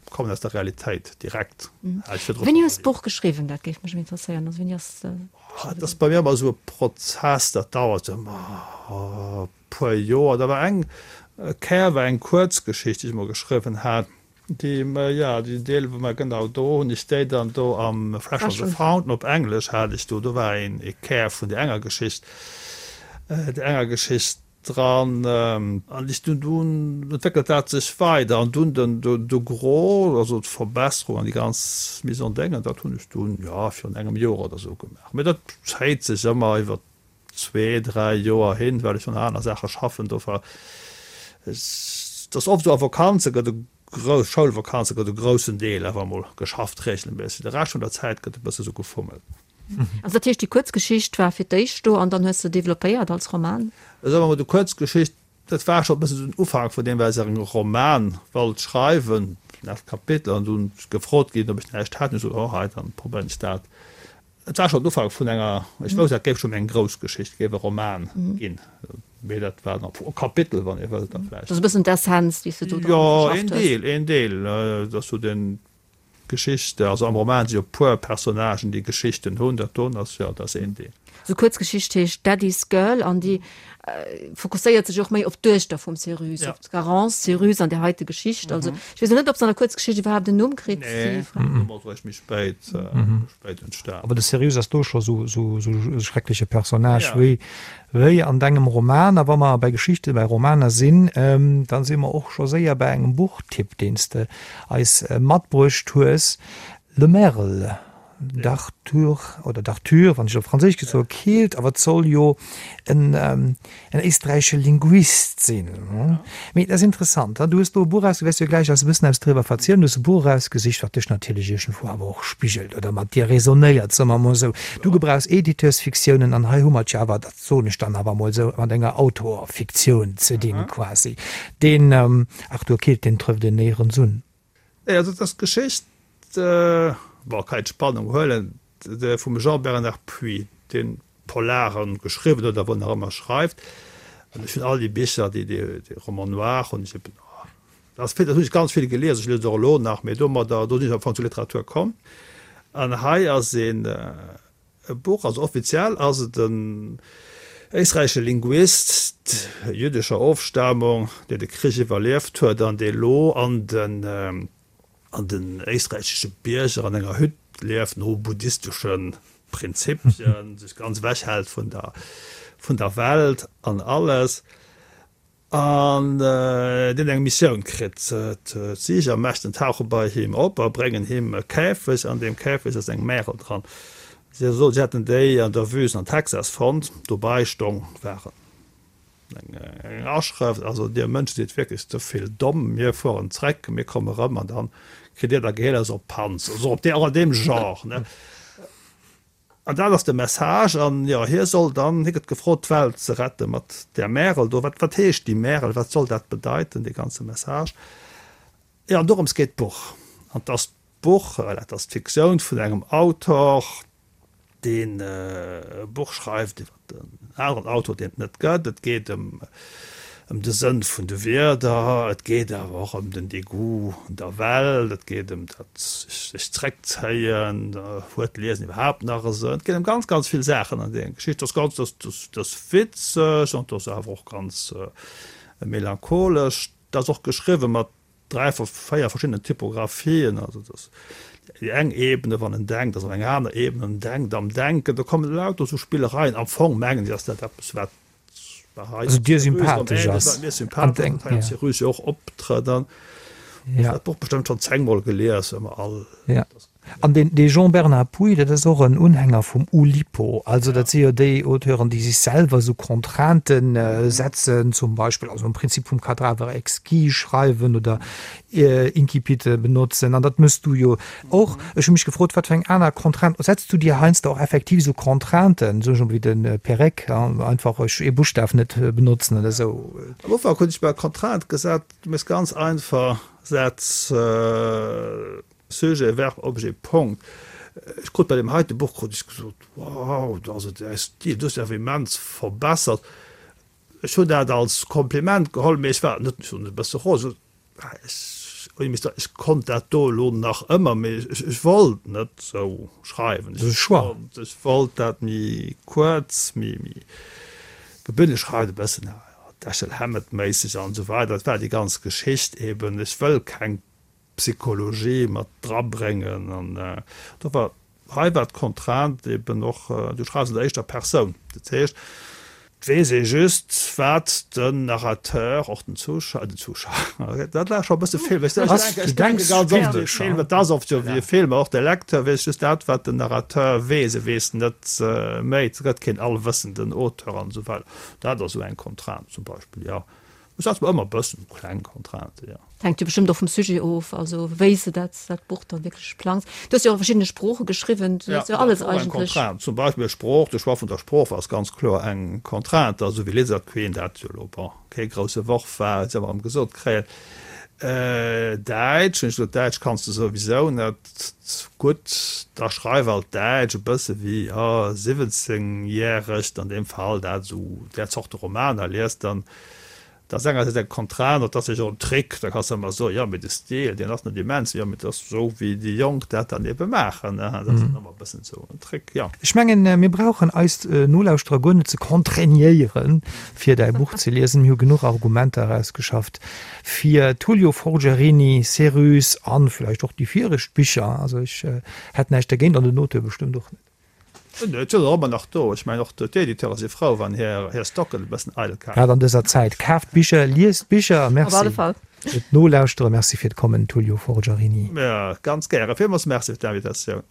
kommen aus der Realitéit direkt. Wéini hues d'Buch geschriwwen? Dat géif mech interesséieren. Also wéini ass. Dat ass bei mir ëmmer esou e Prozess, dat dauert ëmmer e puer Joer. Da war eng Kéier war eng Kuerzgeschicht, déi ech emol geschriwwen hat, déi, jo, déi Deel wou mer genau do hunn ech déi dann do am Fresh from the Fountain op Englesch hat ech do, do war een e Kär vun där enger Geschicht, där enger Geschicht dran. An ech dunn, dunn entwéckelt dat sech weider an dunn den, de Gros, also d'Verbesserung an déi ganz Mise en Déngen, dat hunn ech dunn, jo, virun engem Joer oder esou gemaach. Mee dat zéit sech ëmmer iwwer zwee, dräi Joer hin, well ech un aner Saache schaffen. Dofir, et ass oft esou, a Vakanze gëtt e grouss, Schoulvakanze gëtt e groussen Deel awer emol geschafft regelméisseg. De Rescht vun der Zäit gëtt e bësse sou gefummelt. Also dat heescht, déi Kuerzgeschicht war fir d'éischt do an dann hues de developpéiert als Roman? Soe mer mol, déi Kuerzgeschicht, dat war scho e bësse sou den Ufank vun deem, well ech e Roman wollt schreiwen, dat Kapitel, an dunn gefrot ginn, ob ech näischt hätt. Hunn ech gesot, oh hei, dann probéieren ech dat. Et war schonn den Ufank vun enger, ech wousst, dat géif schonn eng grouss Geschicht, géif e Roman ginn, mee dat war nach e Kapitel, wann ee wëllt, da vläicht. Dat ass e bëssen d'Essenz, déi s de do dran verschafft hues. Jo, een Deel, een Deel. Dat ass sou den, d'Geschicht. Also am Roman si jo e puer Personnagen, déi Geschichten hunn. Dat doen ass, jo, dat ass een Deel. Sou Kuerzgeschicht heescht Daddy's Girl an déi fokusséiert sech och méi op d'Duechter vum Cyrus, op d'Garance Cyrus an där heite Geschicht. Also ech weess och net, ob se an der Kuerzgeschicht iwwerhaapt en Numm kritt. Nee, den Numm ass eréischt méi spéit, spéit entstan. Awer de Cyrus ass do scho sou, sou, sou e schreckleche Personnage wéi, wéi an dengem Roman. A wa mer bei Geschichte, bei Romaner sinn, da si mer och scho séier bei engem Buchtipp, deen s de eis matbruecht hues, Le Merle. D'Arthur, oder d'Arthur, wann ech op Franséisch gesot soe, keelt, awer et soll jo en en éisträichesche Linguist sinn. Mee et ass interessant, du hues do e Buch erausge, wäers jo gläich eis e bëssen eppes driwwer verzielen, du hues e Buch erausgesicht, wat dech natierlech iergendwou awer och spigelt oder mat dir resonéiert, soe mer emol esou. Du gebrauchs Editeursfiktiounen an hei hu mer et jo awer, dat soen ech dann awer emol esou, mat enger Autorfiktioun ze dinn quasi. Deen Arthur Keelt, deen trëfft een néierens un. Nee, also et ass d'Geschicht, bon, kann een d'Spannung huelen, vum Jean-Bernard Puy, deen Polaren geschriwwen huet a wou nach ëmmer schreift. An ech hunn all déi Bicher, déi, déi Romans noirs hunn ech eben, dat ass vill, dat hunn ech ganz vill gelies, ech liesen och elo nach, mee domadder, do sinn ech am Fong zur Literatur komm. An hei ass een. E Buch, also offiziell ass et en éisträichesche Linguist jüddescher Ofstamung, deen de Krich iwwerlieft huet an dee lo an den an den éisträichesche Bierger an enger Hütt lieft, no buddhistesche Prinzipien, sech ganz ewech hält vun der vun der Welt an alles. An deen eng Missioun kritt. D'Siegermächten tauche bei him op a bréngen him e Käfeg. An deem Käfeg ass eng Märel dran. Si soen, si hätten déi an der Wüst an Texas fonnt. Dobei stong war eng Aschrëft, Also dir Mënsche sidd wierklech ze vill domm. Mir fueren zréck, mir komme rëm an dann kritt dir da Geheelers op d'Panz. Esou op och an deem Genre, ne? An dat ass de Message. An jo, hie soll dann, hie gëtt gefrot, d'Welt ze rette mat där Märel do. Wat, wat heescht déi Märel? Wat soll dat bedeiten, dee ganze Message? Jo, an dorëms geet d'Buch. An 't ass d'Buch, well dat ass d'Fiktioun vun engem Autor, deen e Buch schreift iwwer en aneren Autor, deen et net gëtt. Et geet ëm ëm de Sënn vun de Wierder, et geet awer och ëm den Degoût un der Welt, et geet ëm dat sech zréckzéien, huet d'Liesen iwwerhaapt nach e Sënn? Et geet ëm ganz, ganz vill Saachen an denger Geschicht. Dat ass ganz, dat ass witzeg an dat ass awer och ganz melancholesch. Dat ass och geschriwwe mat 3, 4 verschiddenen Typographien, also dass déi eng Ebene, wann en denkt, ass op eng aner Ebene, en denkt am Denken, do kommen lauter esou Spillereien. Am Fong mengen ech, ass dat eppes, wat Also dir sympathesch ass. Mir sympathesch ass, hei am Cyrus jo och optrëtt an ja. Dat Buch bestëmmt schonn zéngmol gelies, ëmmer all. Ja. An deen dee Jean-Bernard Pouy, dat ass och en Unhänger vum Oulipo. Also dat si jo déi Auteuren, déi sech selwer esou Contraintë setzen, zum Beispill also am Prinzip vum Cadavre exquis schreiwen oder Incipite benotzen. An dat mëss du jo och. Ech hu mech gefrot, wat fir eng aner Contrainte, setz du dir heiansdo och effektiv esou Contrainten, esou wéi de Perec, einfach ech ee Buschtaf net benotzen oder esou? Am Ufank hunn ech mer Contrainte gesat, du méchs ganz einfach Sätz, Sujet, Verb, Objet, Punkt. Ech krut bei deem heite Buch krut ech gesot, wow, also däi Stil, du hues dech awer immens verbessert. Ech hunn dat als Kompliment geholl, mee ech war net, ech hunn e bësse rosen, ech konnt dat do elo nach ëmmer, mee ech wollt net esou schreiwen. Ech wollt dat méi kuerz, méi gebündelt schreiwen, e bëssen Dashiell Hammett-méisseg an esou weider. Dat war déi ganz Geschicht eben. Ech wëll keng Psychologie mat drabréngen an do war hei war d'Contrainte eben och, du schreifs an der éischter Persoun, dat heescht et weess ee just wat den Narrateur, och den Zuschauer, den Zuschauer, dat war scho e bësse Film, ech denke ganz oft u Film, et ass oft jo wéi e Film, och de Lecteur weess just dat wat den Narrateur weess, e weess net méi, et gëtt keen allwëssenden Auteur an esou weider. Dat ass esou eng Contrainte zum Beispill, jo. Ech setze mer ëmmer e bëssen kleng Contrainten, jo. Et hänkt jo bestëmmt och vum Sujet of, also wéi s de dat dat Buch dann wierklech plangs. Du hues jo och a verschiddene Sprooche geschriwwen, du hues jo alles eigentlech. Eng Contrainte, zum Beispill Sprooch, de Choix vun der Sprooch ass ganz kloer eng Contrainte, esou wéi Lizard Queen, dat jo elo, bon, kee grousse Worf war, huet se ëmmer erëm gesot kréien. Däitsch, hunn ech gesot, Däitsch kanns de souwisou net gutt, da schreif alt Däitsch, e bësse wéi, jo, siwwenzengjäregt an deem Fall, dat esou där Zorte Romaner liest, dann Dat ass engersäits eng Contrainte, dat ass jo och en Trick, da kanns de ëmmer soen, jo mee de Stil, deen ass net immens, jo mee dat ass esou wéi déi Jonk dat dann ebe maachen, dat ass dann ëmmer e bëssen esou en Trick, jo. Ech mengen, mir brauchen eis Nolauschterer guer net ze contraignéieren, fir däi Buch ze liesen. Mir hu genuch Argumenter erausgeschafft fir Tullio Forgiarini, Cérus an vläicht och déi viregt Bicher. Also ech hätt näischt dergéint an den Auteur bestëmmt och net. Et sinn der ëmmer nach do. Ech mengen och d'Editeure si frou, wann hir Stocken e bëssen eidel kafen. Grad an dëser Zäit. Kaaft Bicher, liest Bicher. Merci fir d'Nolauschtere. Merci fir d'Kommen, Tullio Forgiarini. Ganz gären. Villmools Merci fir d'Invitatioun.